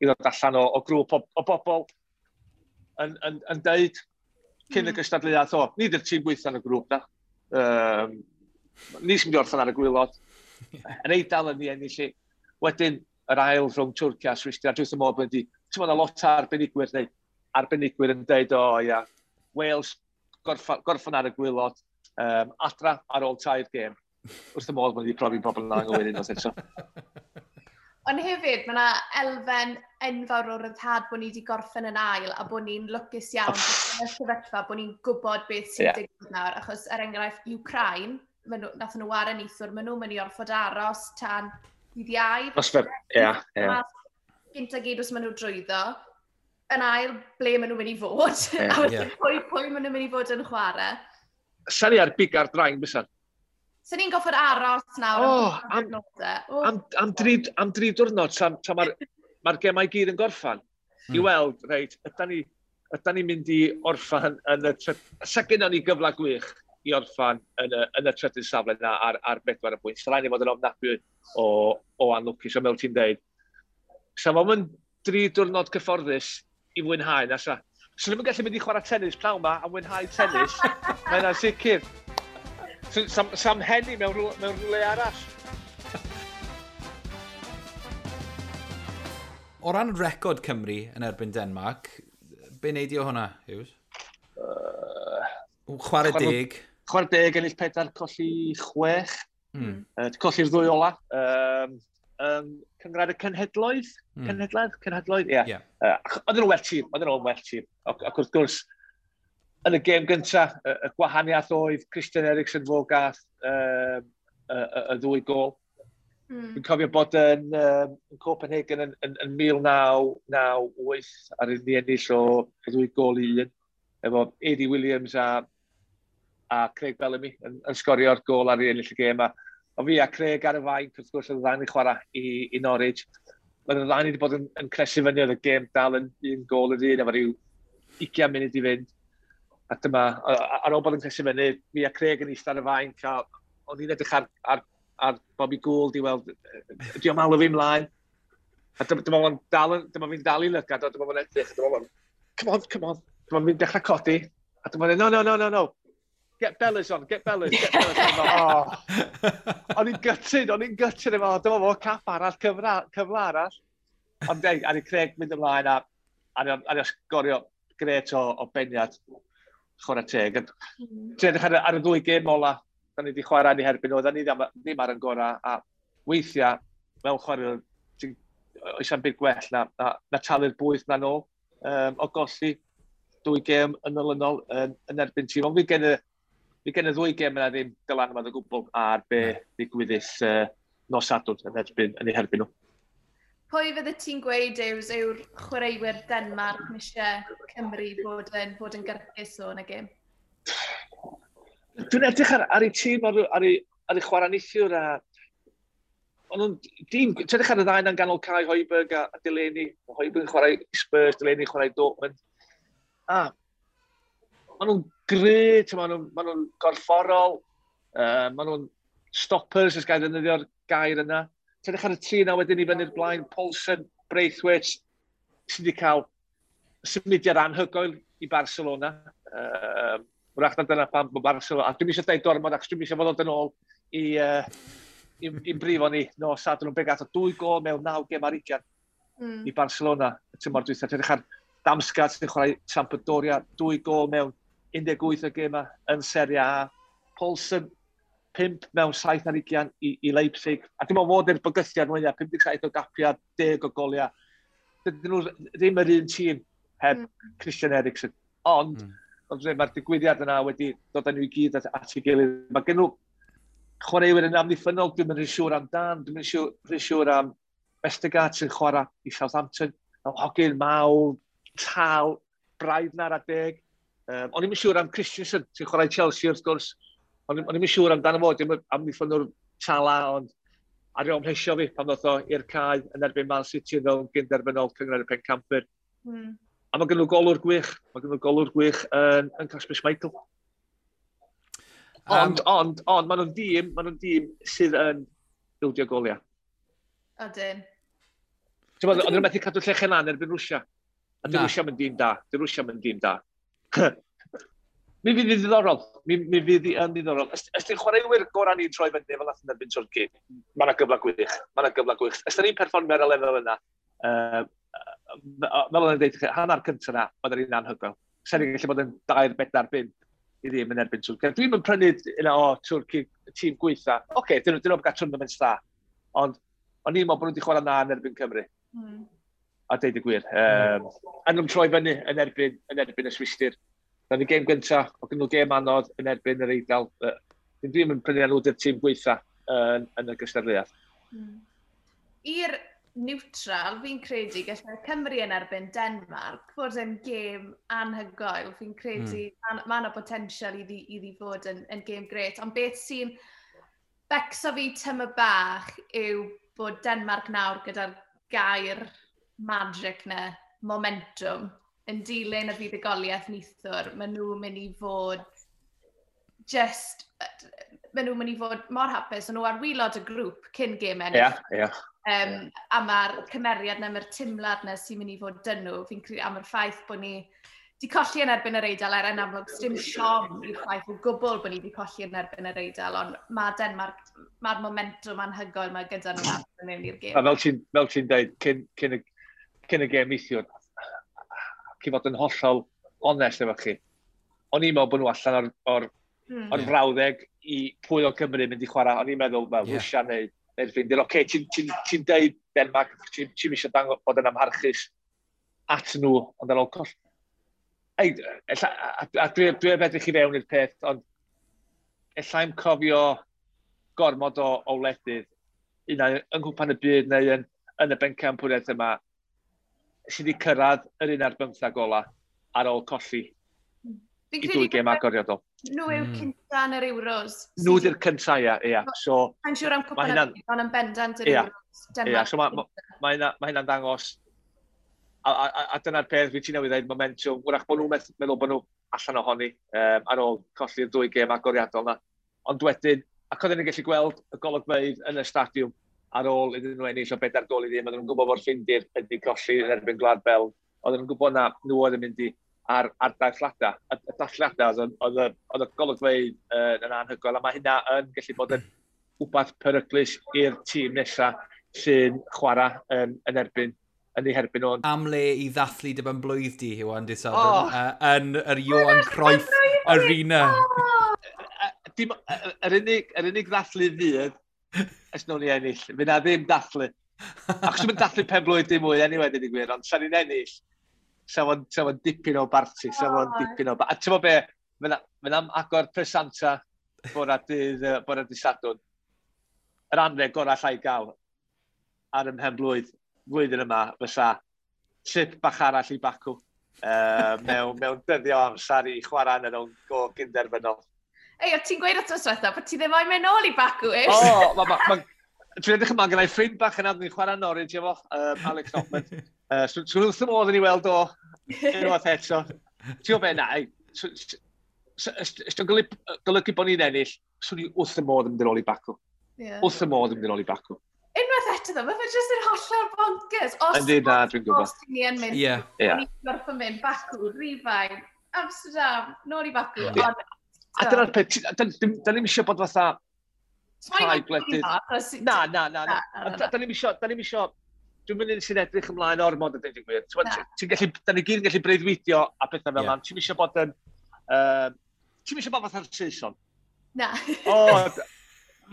ddod allan o grŵp o bobl yn deud cyn y gystadleuaeth, o, ni di'r tîm gweithio yn y grŵp na. Ni sy'n mynd i orffen ar y gwaelod. Yn Eidal yn ni ennill i. Wedyn, yr ail rhwng Twrci a Swistir, a dwi'n meddwl bod wedi, ti'n meddwl lot o arbenigwyr neu arbenigwyr yn deud, o ia, Wales gorffan ar y gwaelod, adra ar ôl 3 gêm. Wrth y modd bod wedi profi pobl yn anghywir unwaith eto.
Ond hefyd, mae yna elfen enfawr o ryddhad bod ni wedi gorffen yn ail a bod ni'n lwcus iawn yn y sefyllfa, bod ni'n gwybod beth sy'n digwydd nawr. Achos, er enghraifft, Ukraine, nathon nhw ware neithiwr, maen nhw'n mynd i orfod aros tan dydd Iau.
Ie, ie.
Gynta gyd os maen nhw drwyddo. Yn ail, ble maen nhw'n mynd i fod. A wedyn pwy maen nhw'n mynd i fod yn chwarae.
Sa ni ar biga'r drain, bysan?
So ni'n goffod aros nawr am diwrnodau.
Am dri diwrnod, tra mae'r gemau gyd yn gorffan. I weld, reit, ydan ni'n mynd i orffan yn y... Sa gynnon ni gyfle gwych i orffan yn y trydydd safle yna ar 4 pwynt. Sa'n rhaid i fod yn ofnadwy o anlwcus, ond fel ti'n deud. Sa fo'm yn 3 diwrnod cyfforddus i fwynhau, na sa. So ddim yn gallu mynd i chwarae tennis pnawn ma a mwynhau tennis. Mae hynna'n sicr. Sam henni mewn rhywle arall.
O ran record Cymru yn erbyn Denmark, be wneud i o hwnna, Hughes? Chwarae deg.
Chwarae deg, ennill 4, colli 6. Colli'r ddwy ola. Cynghrair y Cenhedloedd? Cenhedloedd, ie. Yeah. Oedden nhw'n well tîm, Ac wrth gwrs, yn y gêm gyntaf, y gwahaniaeth oedd Christian Eriksen fo gath y ddwy gôl. Dwi'n cofio bod yn Copenhagen yn 1998 ar un ennill o 2 gôl i 1, efo Eddie Williams a Craig Bellamy yn sgorio'r gôl ar ennill y gêm. O fi a Craig ar y fainc, wrth gwrs, oedd y ddau ni chwarae i Norwich. Oedd y ddau ni wedi bod yn cresu fyny, oedd y gêm dal yn 1 gôl yr un, efo rhyw 20 munud i fynd. A dyma, ar ôl bod yn cresu fyny, fi a Craig yn eistedd ar y fainc, a o'n i'n edrych ar Bobby Gould i weld, di o'n alw fi mlaen. A dyma fi'n dal i lygad, a dyma fo'n edrych, a dyma fo'n, come on, come on. Dyma fi'n dechrau codi, a dyma fo'n, no, no. Get Bellas on, get Bellas, get Bellas on. Oh. O'n i'n gutted efo, dyma fo, cap arall, cyfle arall. Ond deg, a ni Craig mynd ymlaen a ni sgorio gret o beniad chwarae teg. Ti'n edrych ar y ddwy gêm ola, da ni wedi chwarae ni herbyn, oedden ni ddim ar yn gorau, a weithiau, mewn chwarae, oes am byd gwell na talu'r bwyth na nôl, o golli 2 gêm yn olynol yn erbyn tîm. Ond fi gen y ddwy gêm yna ddim dylanwad o gwbl ar be ddigwyddus nos Sadwrn yn eu herbyn nhw.
Pwy fydde ti'n gweud yw'r chwaraewyr Denmark eisiau Cymru bod yn gyrchus o yn y gêm?
Dwi'n edrych ar eu tîm, ar eu chwarae neithiwr. Ti'n edrych ar y ddau yn ganol cae, Højbjerg a Delaney. Højbjerg yn chwarae Spurs, Delaney yn chwarae Dortmund. A maen nhw'n gry, maen nhw'n gorfforol, maen nhw'n stoppers, os gael ddefnyddio'r gair yna. Ti'n edrych ar y tri yna wedyn i fyny'r blaen, Poulsen, Braithwaite, sydd wedi cael symudiad anhygoel i Barcelona. Wrach na dyna pam bod Barcelona, a dwi'n eisiau dweud gormod, achos dwi'n eisiau fod yn ôl i'n brifo ni nos Sadwrn, be gath o 2 gôl mewn 9 gêm ar 20 i Barcelona y tymor dwytha. Ti'n edrych ar Damsgaard sy'n chwarae Sampdoria, 2 gôl mewn 18 o gêmau yn Serie A. Poulsen, 5 mewn 7 ar 20 i Leipzig. A dim ond fod i'r bygythiad mwyaf, 57 o gapiau, 10 o goliau. Dydyn nhw ddim yr un tîm heb Christian Eriksen. Ond, mae'r digwyddiad yna wedi dod â nhw i gyd at ei gilydd. Mae gen nhw chwaraewyr yn amddiffynnol, dwi'n mynd siŵr am Dan, dwi'n mynd siŵr am Vestergaard sy'n chwarae i Southampton. Hogyn mawr, tal, braidd na'r adeg. O'n i'n siŵr am Christensen, sy'n chwarae Chelsea wrth gwrs. O'n i'n siŵr amdano fo, dim amddiffynnwr tala, ond ar ôl mhlesio fi pan ddoth o i'r cae yn erbyn Man City fel gynderfynol Cynghrair y Pencampwyr. A mae gen nhw golwr gwych, yn Kasper Schmeichel. Ond, maen nhw'n dîm sydd yn bildio goliau.
Odyn.
Oedden nhw'n methu cadw llechen lan erbyn Rwsia. A di Rwsia yn dîm da. Di Rwsia yn dîm da. Mi fydd yn ddiddorol. Mi fydd yn ddiddorol. Os di'n chwaraewyr gorau ni'n troi fyny fel nath yn erbyn Twrci, mae yna gyfle gwych. Mae yna gyfle gwych. Os da ni'n perfformio ar y lefel yna, fel o'n i'n dweud, hanner cyntaf yna, oedd yr un anhygoel. Sa'n ni'n gallu bod yn 2, 4, 5 i ddim yn erbyn Twrci. Dwi'n yn prynu yna o Twrci, tîm gweitha. Oce, dyn nhw'n gael tournament da. Ond o'n i'n meddwl bod nhw wedi chwarae na yn erbyn Cymru. A deud y gwir. A nhw'n troi fyny yn erbyn y Swistir. Na'n ni gêm gyntaf, o gyn nhw gêm anodd yn erbyn yr Eidal. Dwi'n yn prynu nhw di'r tîm gweitha yn y gystadleuaeth.
I'r neutral, fi'n credu gallai Cymru yn erbyn Denmark fod yn gêm anhygoel. Fi'n credu mae yna potensial iddi fod yn gêm gret. Ond beth sy'n becso fi tyma bach yw bod Denmark nawr gyda'r gair magic na, momentum, yn dilyn y fuddugoliaeth neithiwr, maen nhw'n mynd i fod Just, maen nhw'n mynd i fod mor hapus, ond nhw ar waelod y grŵp cyn gêm ennill.
Ie, ie.
A mae'r cymeriad na, mae'r timlad na sy'n mynd i fod dyn nhw, fi'n credu am yr ffaith bod ni di colli yn erbyn yr Eidal, er yn amlwg, dim siom i'r ffaith o gwbl bod ni di colli yn erbyn yr Eidal, ond mae Denmark, mae'r momentum anhygoel mae gyda nhw nawr mewn i'r gêm.
A fel ti'n ti dweud, cyn y gêm neithiwr, cyn fod yn hollol onest efo chi, o'n i'n meddwl bod nhw allan o'r frawddeg i pwy o Cymru mynd i chwarae. O'n i'n meddwl, fel, Rwsia neu'r Ffindir. Oce, ti'n deud Denmark, ti'n ti eisiau dangos bod yn amharchus at nhw, ond ar ôl coll. Ei, ella, a dwi heb edrych i fewn i'r peth, ond ella i'm cofio gormod o wledydd, un ai yng Nghwpan y Byd neu yn y bencampwriaeth yma, sydd wedi cyrraedd yr 11 ola ar ôl colli
Fi'n
i
credu
dwy gêm agoriadol.
Nhw yw'r cynta yn yr Euros.
Nhw di'r cynta, ia. So,
Mae'n siŵr am
ma'
cwpan y byd, ond yn bendant yr Euros.
Ia, so mae hynna'n dangos, a dyna'r peth fi ti newydd dweud, momentum, wrach bod nhw'n meddwl bod nhw allan ohoni ar ôl colli'r dwy gêm agoriadol na. Ond wedyn, ac oedden ni'n gallu gweld y golygfeydd yn y stadiwm ar ôl iddyn nhw ennill o 4 gôl i ddim, oedden nhw'n gwybod bod Ffindir wedi colli yn erbyn Gwlad Belg, oedden nhw'n gwybod na nhw oedd yn mynd i ar dathliadau. Y dathliadau, oedd y golygfeydd yn anhygoel, a mae hynna yn gallu bod yn wbath peryglus i'r tîm nesaf sy'n chwarae yn ei herbyn nhw.
Am le i ddathlu dy ben blwydd di, Iwan, di Sadwrn, yn yr Johan Cruyff Arena.
Dim, yr unig ddathlu fydd, ys nhw'n i ennill. Fydd na ddim dathlu. Achos dwi'n dathlu pen blwydd dim mwy, anyway, dweud y gwir, ond sa'n ni'n ennill, sa fo'n dipyn o barti, sa fo'n dipyn o. A ti'n be, fydd am agor presanta bora dydd Sadwrn. Yr anreg gorau allai gael ar ym mhen blwydd flwyddyn yma fysa trip bach arall i Baku mewn dyddio amser i chwarae yn y rownd go gynderfynol.
Ei, o ti'n gweud wrth diwetha bod ti ddim moyn mynd nôl i Baku, ish?
O, ma, dwi'n edrych yma, gyda'i ffrind bach yna, ni'n chwarae Norwich efo, Alex Hoffman. So wrth y modd yn ei weld o unwaith eto. Ti'n gwybod be, na, ei, os dwi'n golygu bod ni'n ennill, swn i wrth y modd yn mynd yn ôl i Baku. Wrth y modd yn mynd yn ôl i Baku.
Unwaith eto ddo, mae fe jyst yn hollol bonkers. Os,
Yndi, na, dwi'n gwybod.
Os ni yn mynd, ni'n gorfod mynd Baku, Rhufain, Amsterdam, nôl i Baku. Ond,
A dyna'r peth, da ni'm eisiau bod fatha rhai gwledydd. Na, na, na. Na. Da ni'm eisiau, dwi'n mynd sy'n edrych ymlaen ormod a dweud y gwir. Ti'n
Na.
Ti'n gallu, da ni gyd yn gallu breuddwydio a pethau fel 'na. Ti'n eisiau bod fatha'r Saeson.
Na.
O,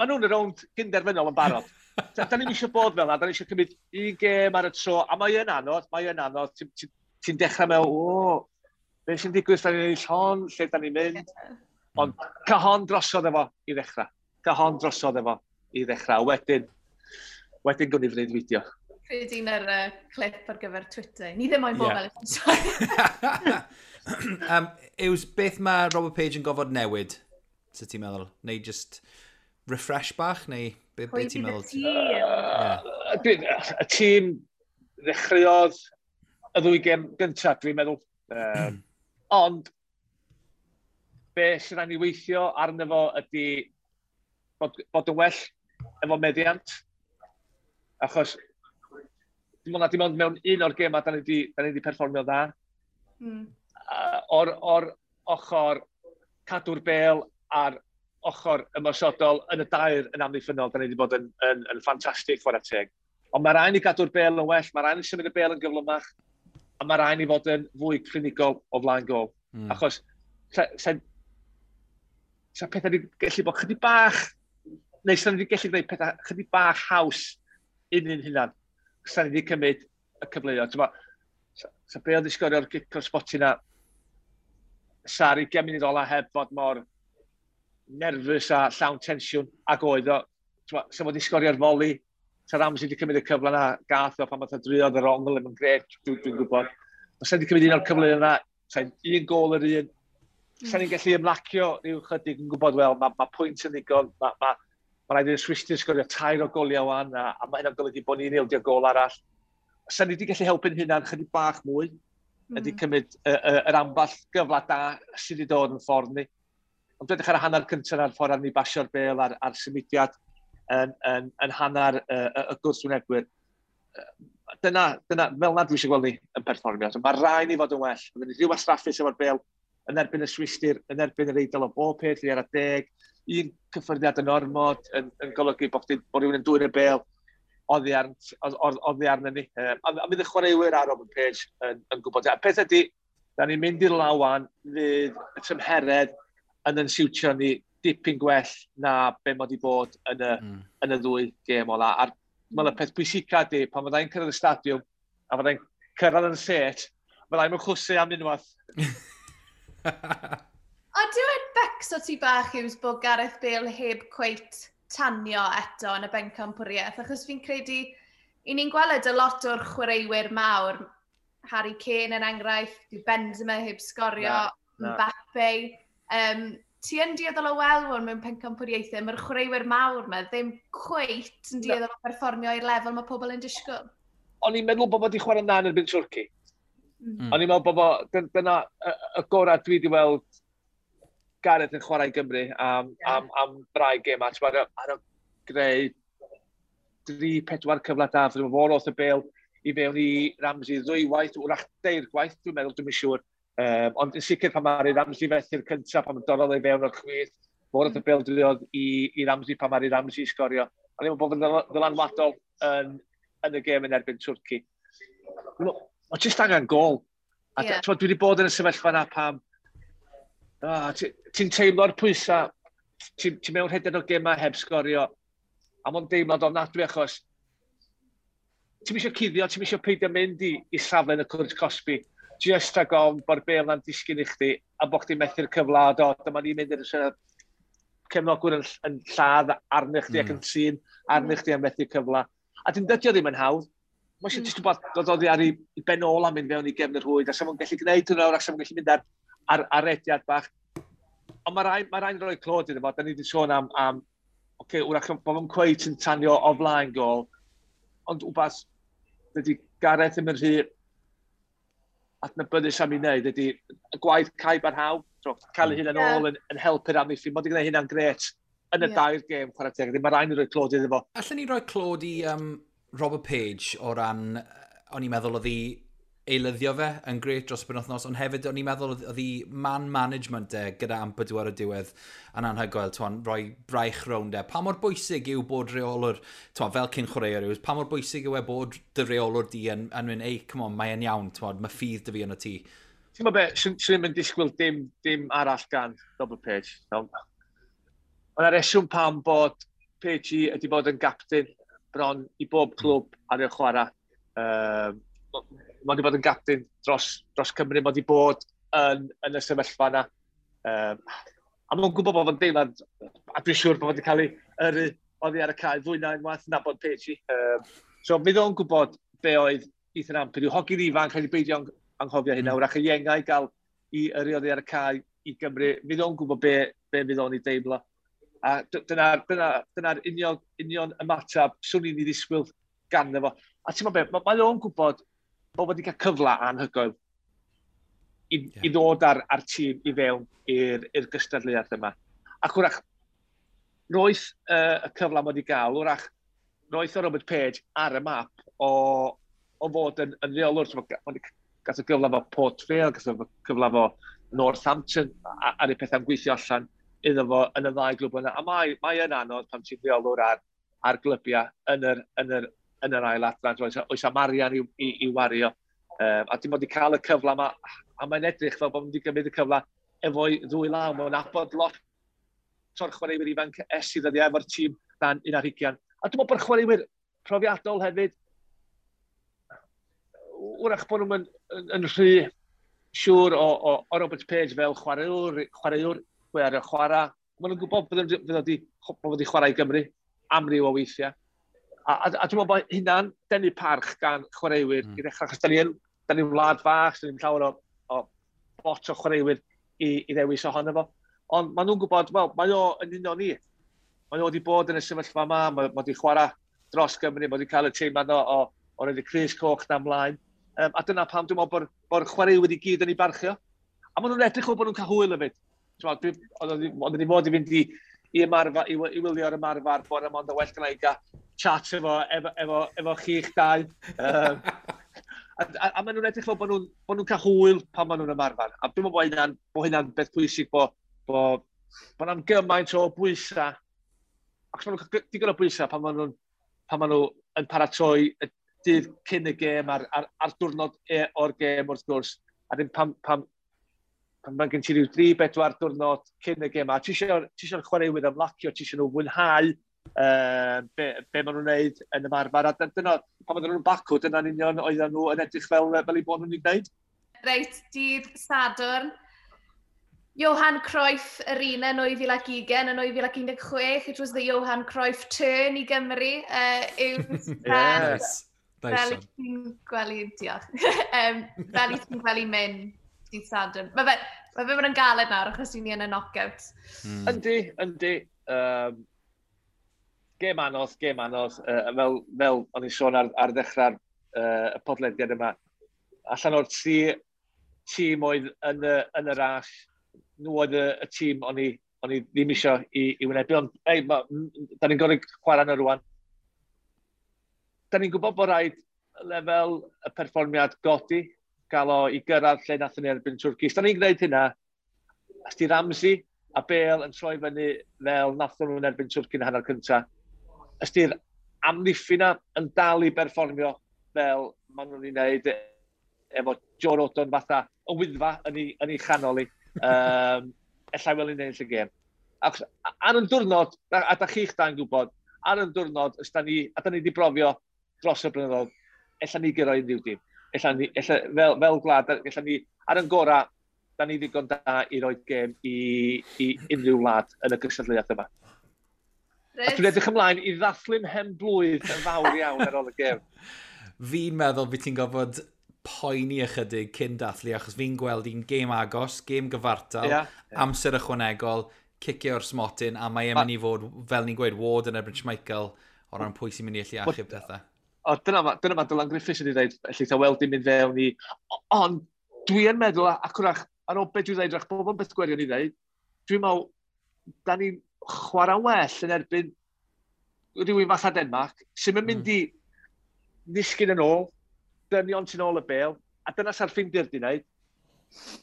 maen nhw'n y rownd gynderfynol yn barod. Da ni'm eisiau bod fel 'na, da ni eisiau cymryd un gêm ar y tro, a mae yn anodd, mae yn anodd. Ti'n dechrau mewn, o, beth sy'n digwydd, da ni'n ennill hon, lle da ni'n mynd. Ond cael hon drosodd efo i ddechrau. Cael hon drosodd efo i ddechrau. Wedyn gwni freuddwydio.
Credu un ar clip ar gyfer Twitter. Ni ddim moyn bod fel y
Yws, beth mae Robert Page yn gofod newid, sut ti'n meddwl? Neu just refresh bach, neu be
Pwy
ti'n
bydd y
meddwl?
tîm?
Y tîm ddechreuodd y ddwy gêm gyntaf, dwi'n meddwl. Ond, be sydd rhaid ni weithio arno fo ydy bod yn well efo meddiant. Achos, dim ond mewn un o'r gemau da ni di perfformio dda. O'r ochr cadw'r bel a'r ochr ymosodol yn y dair yn amddiffynnol, da ni wedi bod yn ffantastig, chwarae teg. Ond mae rhaid ni gadw'r bel yn well, mae rhaid ni symud y bel yn gyflymach, a mae rhaid ni fod yn fwy clinigol o flaen gol. Achos sa pethau wedi gallu bod chydig bach, neu sa ni wedi gallu gwneud pethau chydig bach haws un hunan. Sa ni wedi cymryd y cyfleoedd. T'mo', sa Bale wedi sgorio'r gic o'r smotyn na, sa'r 20 munud ola heb fod mor nerfus a llawn tensiwn ag oedd o. T'mo', sa fo wedi sgorio'r foli, sa Ramsey wedi cymryd y cyfle na, gath o pan math o driodd yr ongl yn grêt, dwi gwybod. Os sa wedi cymryd un o'r cyfleoedd yna, sa'n un gol yr un, sa ni'n gallu ymlacio rhyw chydig yn gwybod, wel, mae pwynt yn ddigon, ma rhaid i'r Swistir sgorio tair o goliau wan, a mae hynna'n golygu bod ni'n ildio gol arall. Sa ni wedi gallu helpu'n hunan chydig bach mwy, ydy cymryd yr amball gyfle da sydd wedi dod yn ffordd ni. Ond edrych ar y hanner cyntaf ar ffordd arni basio'r bel a'r symudiad yn hanner y gwrthwynebwyr. Dyna, fel na dwi eisiau gweld ni yn perfformio. So, mae rhaid ni fod yn well. Byddwn ni rhyw wastraffus efo'r bel yn erbyn y Swistir, yn erbyn yr Eidal o bob peth, i ar y deg. Un cyffyrddiad yn ormod yn golygu bod rhywun yn dwyn y bel oddi arno ni. A fydd y chwaraewyr ar Robert Page yn gwybod. A peth ydy, da ni'n mynd i'r lawan, fydd y tymheredd yn siwtio ni dipyn gwell na be mod i bod yn y ddwy gêm ola. A'r y peth pwysica ydy, pan fyddai'n cyrraedd y stadiwm, a fyddai'n cyrraedd yn set, fyddai'n mynd chwsu am unwaith.
O, dwi'n becso ti bach yw bod Gareth Bale heb cweit tanio eto yn y bencampwriaeth, achos fi'n credu, i ni'n gweld y lot o'r chwaraewyr mawr, Harry Kane yn enghraifft, dyw Benzema heb sgorio, na. Mbappe. Ti yn dueddol o weld hwn mewn pencampwriaethau, mae'r chwaraewyr mawr yma ddim cweit yn dueddol o perfformio i'r lefel mae pobl yn disgwyl.
O'n i'n meddwl bod wedi chwarae'n dda yn erbyn Twrci. O'n i'n meddwl bod dyna y gorau dwi wedi weld Gareth yn chwarae i Gymru am rai gêm. Ar y greu 3-4 cyfle da, fod fawr o'r y bel i fewn i Ramsey ddwywaith, wrach deir gwaith, dwi'n meddwl, dwi'n siŵr. Ond yn sicr pan mae'r Ramsey fethu'r cyntaf, pan mae'n dorrodd ei fewn o'r chwith, fawr o'r bel driodd i Ramsey pan mae'r Ramsey sgorio. O'n i'n meddwl bod yn ddylanwadol yn y gêm yn erbyn Twrci. Mae jyst angen gol. A dwi wedi bod yn y sefyllfa yna pam ti'n teimlo'r pwysau, ti'n mewn rhedeg o gemau heb sgorio, a mae'n deimlad ofnadwy achos ti'n eisiau cuddio, ti'n eisiau peidio mynd i safle yn y cwrt cosbi, just rhag ofn bod bel na'n disgyn i chdi, a bod chdi'n methu'r cyfle, a do, dyma ni'n mynd i'r cefnogwyr yn lladd arnych chdi ac yn trin arnych chdi am methu cyfle. A dyn dydio ddim yn hawdd. Mae eisiau jyst gwybod dod oddi ar ei ben ôl a mynd fewn i gefn yr rhwyd, a sa fo'n gallu gwneud hwnna, a sa fo'n gallu mynd ar rediad bach. Ond mae rhaid rhoi clod iddo fo, da ni wedi sôn am okay, wrach bod fo'n cweit yn tanio o flaen gol, ond wbath, dydy Gareth ddim yn rhy adnabyddus am ei wneud, ydy y gwaith cae barhaw, so, cael ei hunan ôl yn helpu'r amddiffyn, mae wedi gwneud hynna'n gret yn y dair gêm, chwarae teg, mae rhaid ni roi clod iddo fo.
Allen ni roi clod i Robert Page o ran, o'n i'n meddwl oedd hi eilyddio fe yn gret dros y penwythnos, ond hefyd o'n i'n meddwl oedd hi man management e gyda Ampadu ar y diwedd yn anhygoel, t'won, rhoi braich rownd e. Pa mor bwysig yw bod reolwr, t'won, fel cyn chwaraewr yw, pa mor bwysig yw e bod dy reolwr di yn mynd, ei, come on, mae e'n iawn, t'won, mae ffydd dy fi yn y tŷ.
Ti'n meddwl be, swn i'n mynd disgwyl dim arall gan Robert Page. No. Mae yna reswm pam bod Page ydi bod yn gapten bron i bob clwb ar ei chwarae. Mae wedi bod yn gapten dros Cymru, mae wedi bod yn y sefyllfa yna. A mae'n gwybod bod fo'n deimlad, a dwi'n siŵr bod wedi cael ei yrru oddi ar y cae fwy na unwaith nabod Page. So fydd o'n gwybod be oedd Ethan Ampadu. Hogyn ifanc, rhaid i beidio anghofio hynna, wrach y iengau gael i yrru oddi ar y cae i Gymru. Fydd o'n gwybod be fydd o'n ei deimlo. A dyna'r union ymateb swn i'n ei ddisgwyl ganddo fo. A ti'n meddwl be, mae o'n gwybod bod wedi cael cyfle anhygoel i ddod ar tîm i fewn i'r gystadleuaeth yma. Ac wrach, roedd y cyfle mae wedi gael, wrach, roedd o Robert Page ar y map o fod yn reolwr. Gath o gyfle fo Port Vale, gath o cyfle fo Northampton, ar ei pethau'n gweithio allan iddo fo yn y ddau glwb yna. A mae yn anodd pan ti'n reolwr ar glybiau yn yr ail adran, oes am arian i wario. A dim ond i cael y cyfle yma, a mae'n edrych fel bod wedi gymryd y cyfle efo'i ddwy law. Mae'n nabod lot o'r chwaraewyr ifanc es i ddyddiau efo'r tîm dan 21. A dwi'n meddwl bod chwaraewyr profiadol hefyd, wrach bod nhw'n yn rhy siŵr o Robert Page fel chwaraewr, chwarae. Maen nhw'n gwybod bod wedi chwarae i Gymru amryw o weithiau. A dwi'n meddwl bod hynna'n denu parch gan chwaraewyr i ddechrau, achos da ni'n wlad fach, da ni'n llawer o bot o chwaraewyr i ddewis ohono fo. Ond maen nhw'n gwybod, wel, mae o yn un o ni. Mae o wedi bod yn y sefyllfa yma, mae wedi chwarae dros Gymru, mae wedi cael y teimlad o roed y crys coch na ymlaen. A dyna pam dwi'n meddwl bod chwaraewyr i gyd yn ei barchio. A maen nhw'n edrych o bod nhw'n cael hwyl hefyd. Oedden ni fod i fynd i ymarfer, i wylio'r ymarfer bore yma, ond well gynna i gael chat efo chi'ch dau. A maen nhw'n edrych fel bod nhw'n cael hwyl pan maen nhw'n ymarfer. A dwi'n meddwl bod hynna'n beth pwysig bod na'n gymaint o bwysau. Ac maen nhw'n cael digon o bwysau pan maen nhw yn paratoi y dydd cyn y gêm a'r diwrnod o'r gêm wrth gwrs. A ddim pan mae gen ti ryw 3-4 diwrnod cyn y gêm, a ti eisiau'r chwaraewyr ymlacio, ti eisiau nhw fwynhau be maen nhw'n wneud yn ymarfer. A dyna, pan oedden nhw'n Bacw, dyna'n union oedden nhw yn edrych fel eu bod nhw'n ei gwneud.
Reit, dydd Sadwrn. Johan Cruyff Arena yn 2020 yn 2016. It was the Johan Cruyff turn i Gymru.
Yes.
Fel i ti'n gwely, diolch. Fel i ti'n gwely mynd dydd Sadwrn. Mae fe mynd yn galed nawr achos ni yn y knockout.
Yndi. Gêm anodd. Fel o'n i'n sôn ar ddechrau'r y podlediad yma, allan o'r tri tîm oedd yn y ras, nhw oedd y tîm o'n i ddim eisiau i wynebu. Ond ei, da ni'n gorfod chwarae yna rwan. Da ni'n gwybod bod rhaid lefel y perfformiad godi, gael o i gyrraedd lle nathon ni erbyn Twrci. Os da ni'n gwneud hynna, os di Ramsey a Bale yn troi fyny fel nathon nhw'n erbyn Twrci yn hanner cyntaf, os di'r amddiffyn yn dal i berfformio fel maen nhw'n ei wneud efo Joe Rodon fatha y wyddfa yn ei chanol i, ella wel i'n ennill y gêm. Ac ar yn diwrnod, a da chi'ch da'n gwybod, ar yn diwrnod, os da ni, a da ni wedi brofio dros y blynyddoedd, ella ni gyrra unrhyw dîm. Ella ni, fel gwlad, ella ni, ar yn gorau, da ni ddigon da i roi gêm i unrhyw wlad yn y gystadleuaeth yma. A dwi'n edrych ymlaen i ddathlu'n hen blwydd yn fawr iawn ar ôl y gêm.
Fi'n meddwl byd ti'n gorfod poeni ychydig cyn dathlu, achos fi'n gweld un gêm agos, gêm gyfartal, amser ychwanegol, cicio o'r smotyn, a mae e'n mynd i fod, fel ni'n gweud, Ward yn erbyn Schmeichel, o ran pwy sy'n mynd i allu achub pethau.
O, dyna ma Dylan Griffiths wedi dweud, ellith a weld i'n mynd fewn i... Ond dwi yn meddwl, ac wrach, ar ôl beth dwi'n dweud, wrach, bob yn beth gwirion i dweud, dwi'n meddwl, da ni'n chwarae well yn erbyn rhywun fatha Denmark, sy'n mynd i ddisgyn yn ôl, dynion sy'n ôl y bêl, a dyna sa'r Ffindir di wneud.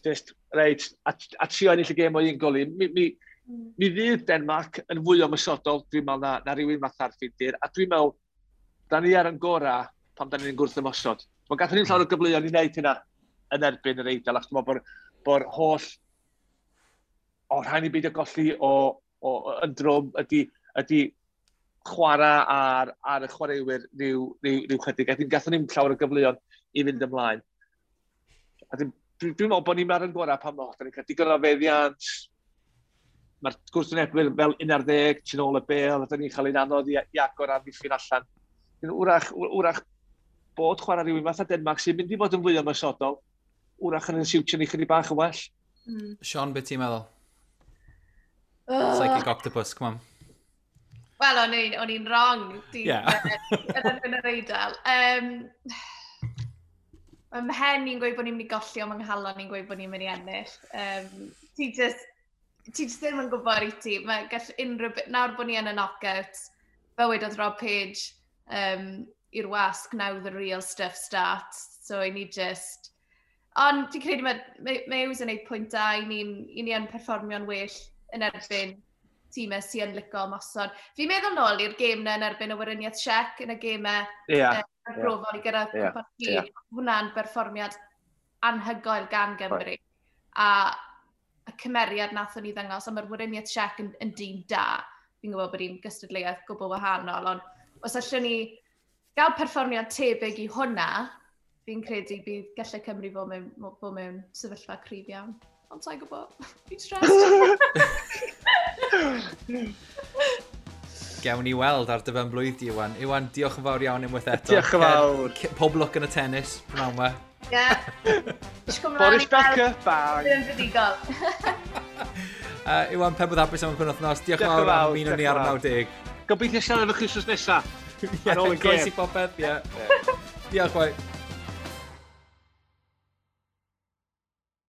Just, reit, a trio ennill y gêm o un gol i. Mi fydd Denmark yn fwy ymosodol, dwi'n meddwl, na rhywun fatha'r Ffindir, a dwi'n meddwl, da ni ar yn gorau pan da ni'n gwrth ymosod. Mae gathon ni'n llawer o gyfleoedd i wneud hynna yn erbyn yr Eidal, achos dwi'n meddwl bod holl o rhaid ni beidio golli o yn drwm ydy chwarae ar y chwaraewyr rhyw chydig. A gathon ni'n llawer o gyfleoedd i fynd ymlaen. A dwi'n meddwl bod ni'n ar yn gorau pan da ni'n cael digon o feddiant, mae'r gwrthwynebwyr fel 11, tu ôl y bêl, a da ni'n cael ein anodd i agor amddiffyn allan. Wrach bod chwarae rhywun fatha Denmark sy'n mynd i fod yn fwy ymosodol, wrach yn siwtio ni chydig bach yn well.
Sean, beth ti'n meddwl? Psychic octopus, come on.
Wel, o'n i'n wrong. Yn yr Eidal. Mae mhen i'n gweud bod ni'n mynd i golli, ond mae nghalon i'n gweud bod ni'n mynd i ennill. Ti just ddim yn gwybod i ti. Mae gall unrhyw... Nawr bod ni yn y knockout, fel wedodd Rob Page, i'r wasg, now the real stuff starts. So i ni just... Ond ti'n credu mae Hughes yn gwneud pwynt da, i ni yn perfformio'n well yn erbyn tîmau sy'n licio ymosod. Fi'n meddwl nôl i'r gêm na yn erbyn y Weriniaeth Czech yn y gêmau arbrofol i gyrraedd cwpan y byd. Hwnna'n berfformiad anhygoel gan Gymru. Right. A y cymeriad nathon ni ddangos, a mae'r Weriniaeth Czech yn dîm da. Fi'n gwybod bod hi'n gystadleuaeth gwbl wahanol, ond os allwn ni gael perfformiad tebyg i hwnna, fi'n credu bydd gallai Cymru fod mewn sefyllfa cryf iawn. Ond sa'n gwybod, fi'n stressed.
Gewn ni weld ar dy ben blwydd di, Iwan. Iwan, diolch yn fawr iawn unwaith eto.
Diolch yn fawr.
Pob lwc yn y tennis, prynawn yma.
Ie.
Boris Becker, bang.
Ddim fuddugol.
Iwan, pen bod hapus am y penwythnos. Diolch yn fawr am ymuno ni ar 90.
Gobeithio siarad efo chi wythnos nesaf.
Ar ôl y gêm. Croesi popeth, ie. Diolch, boi.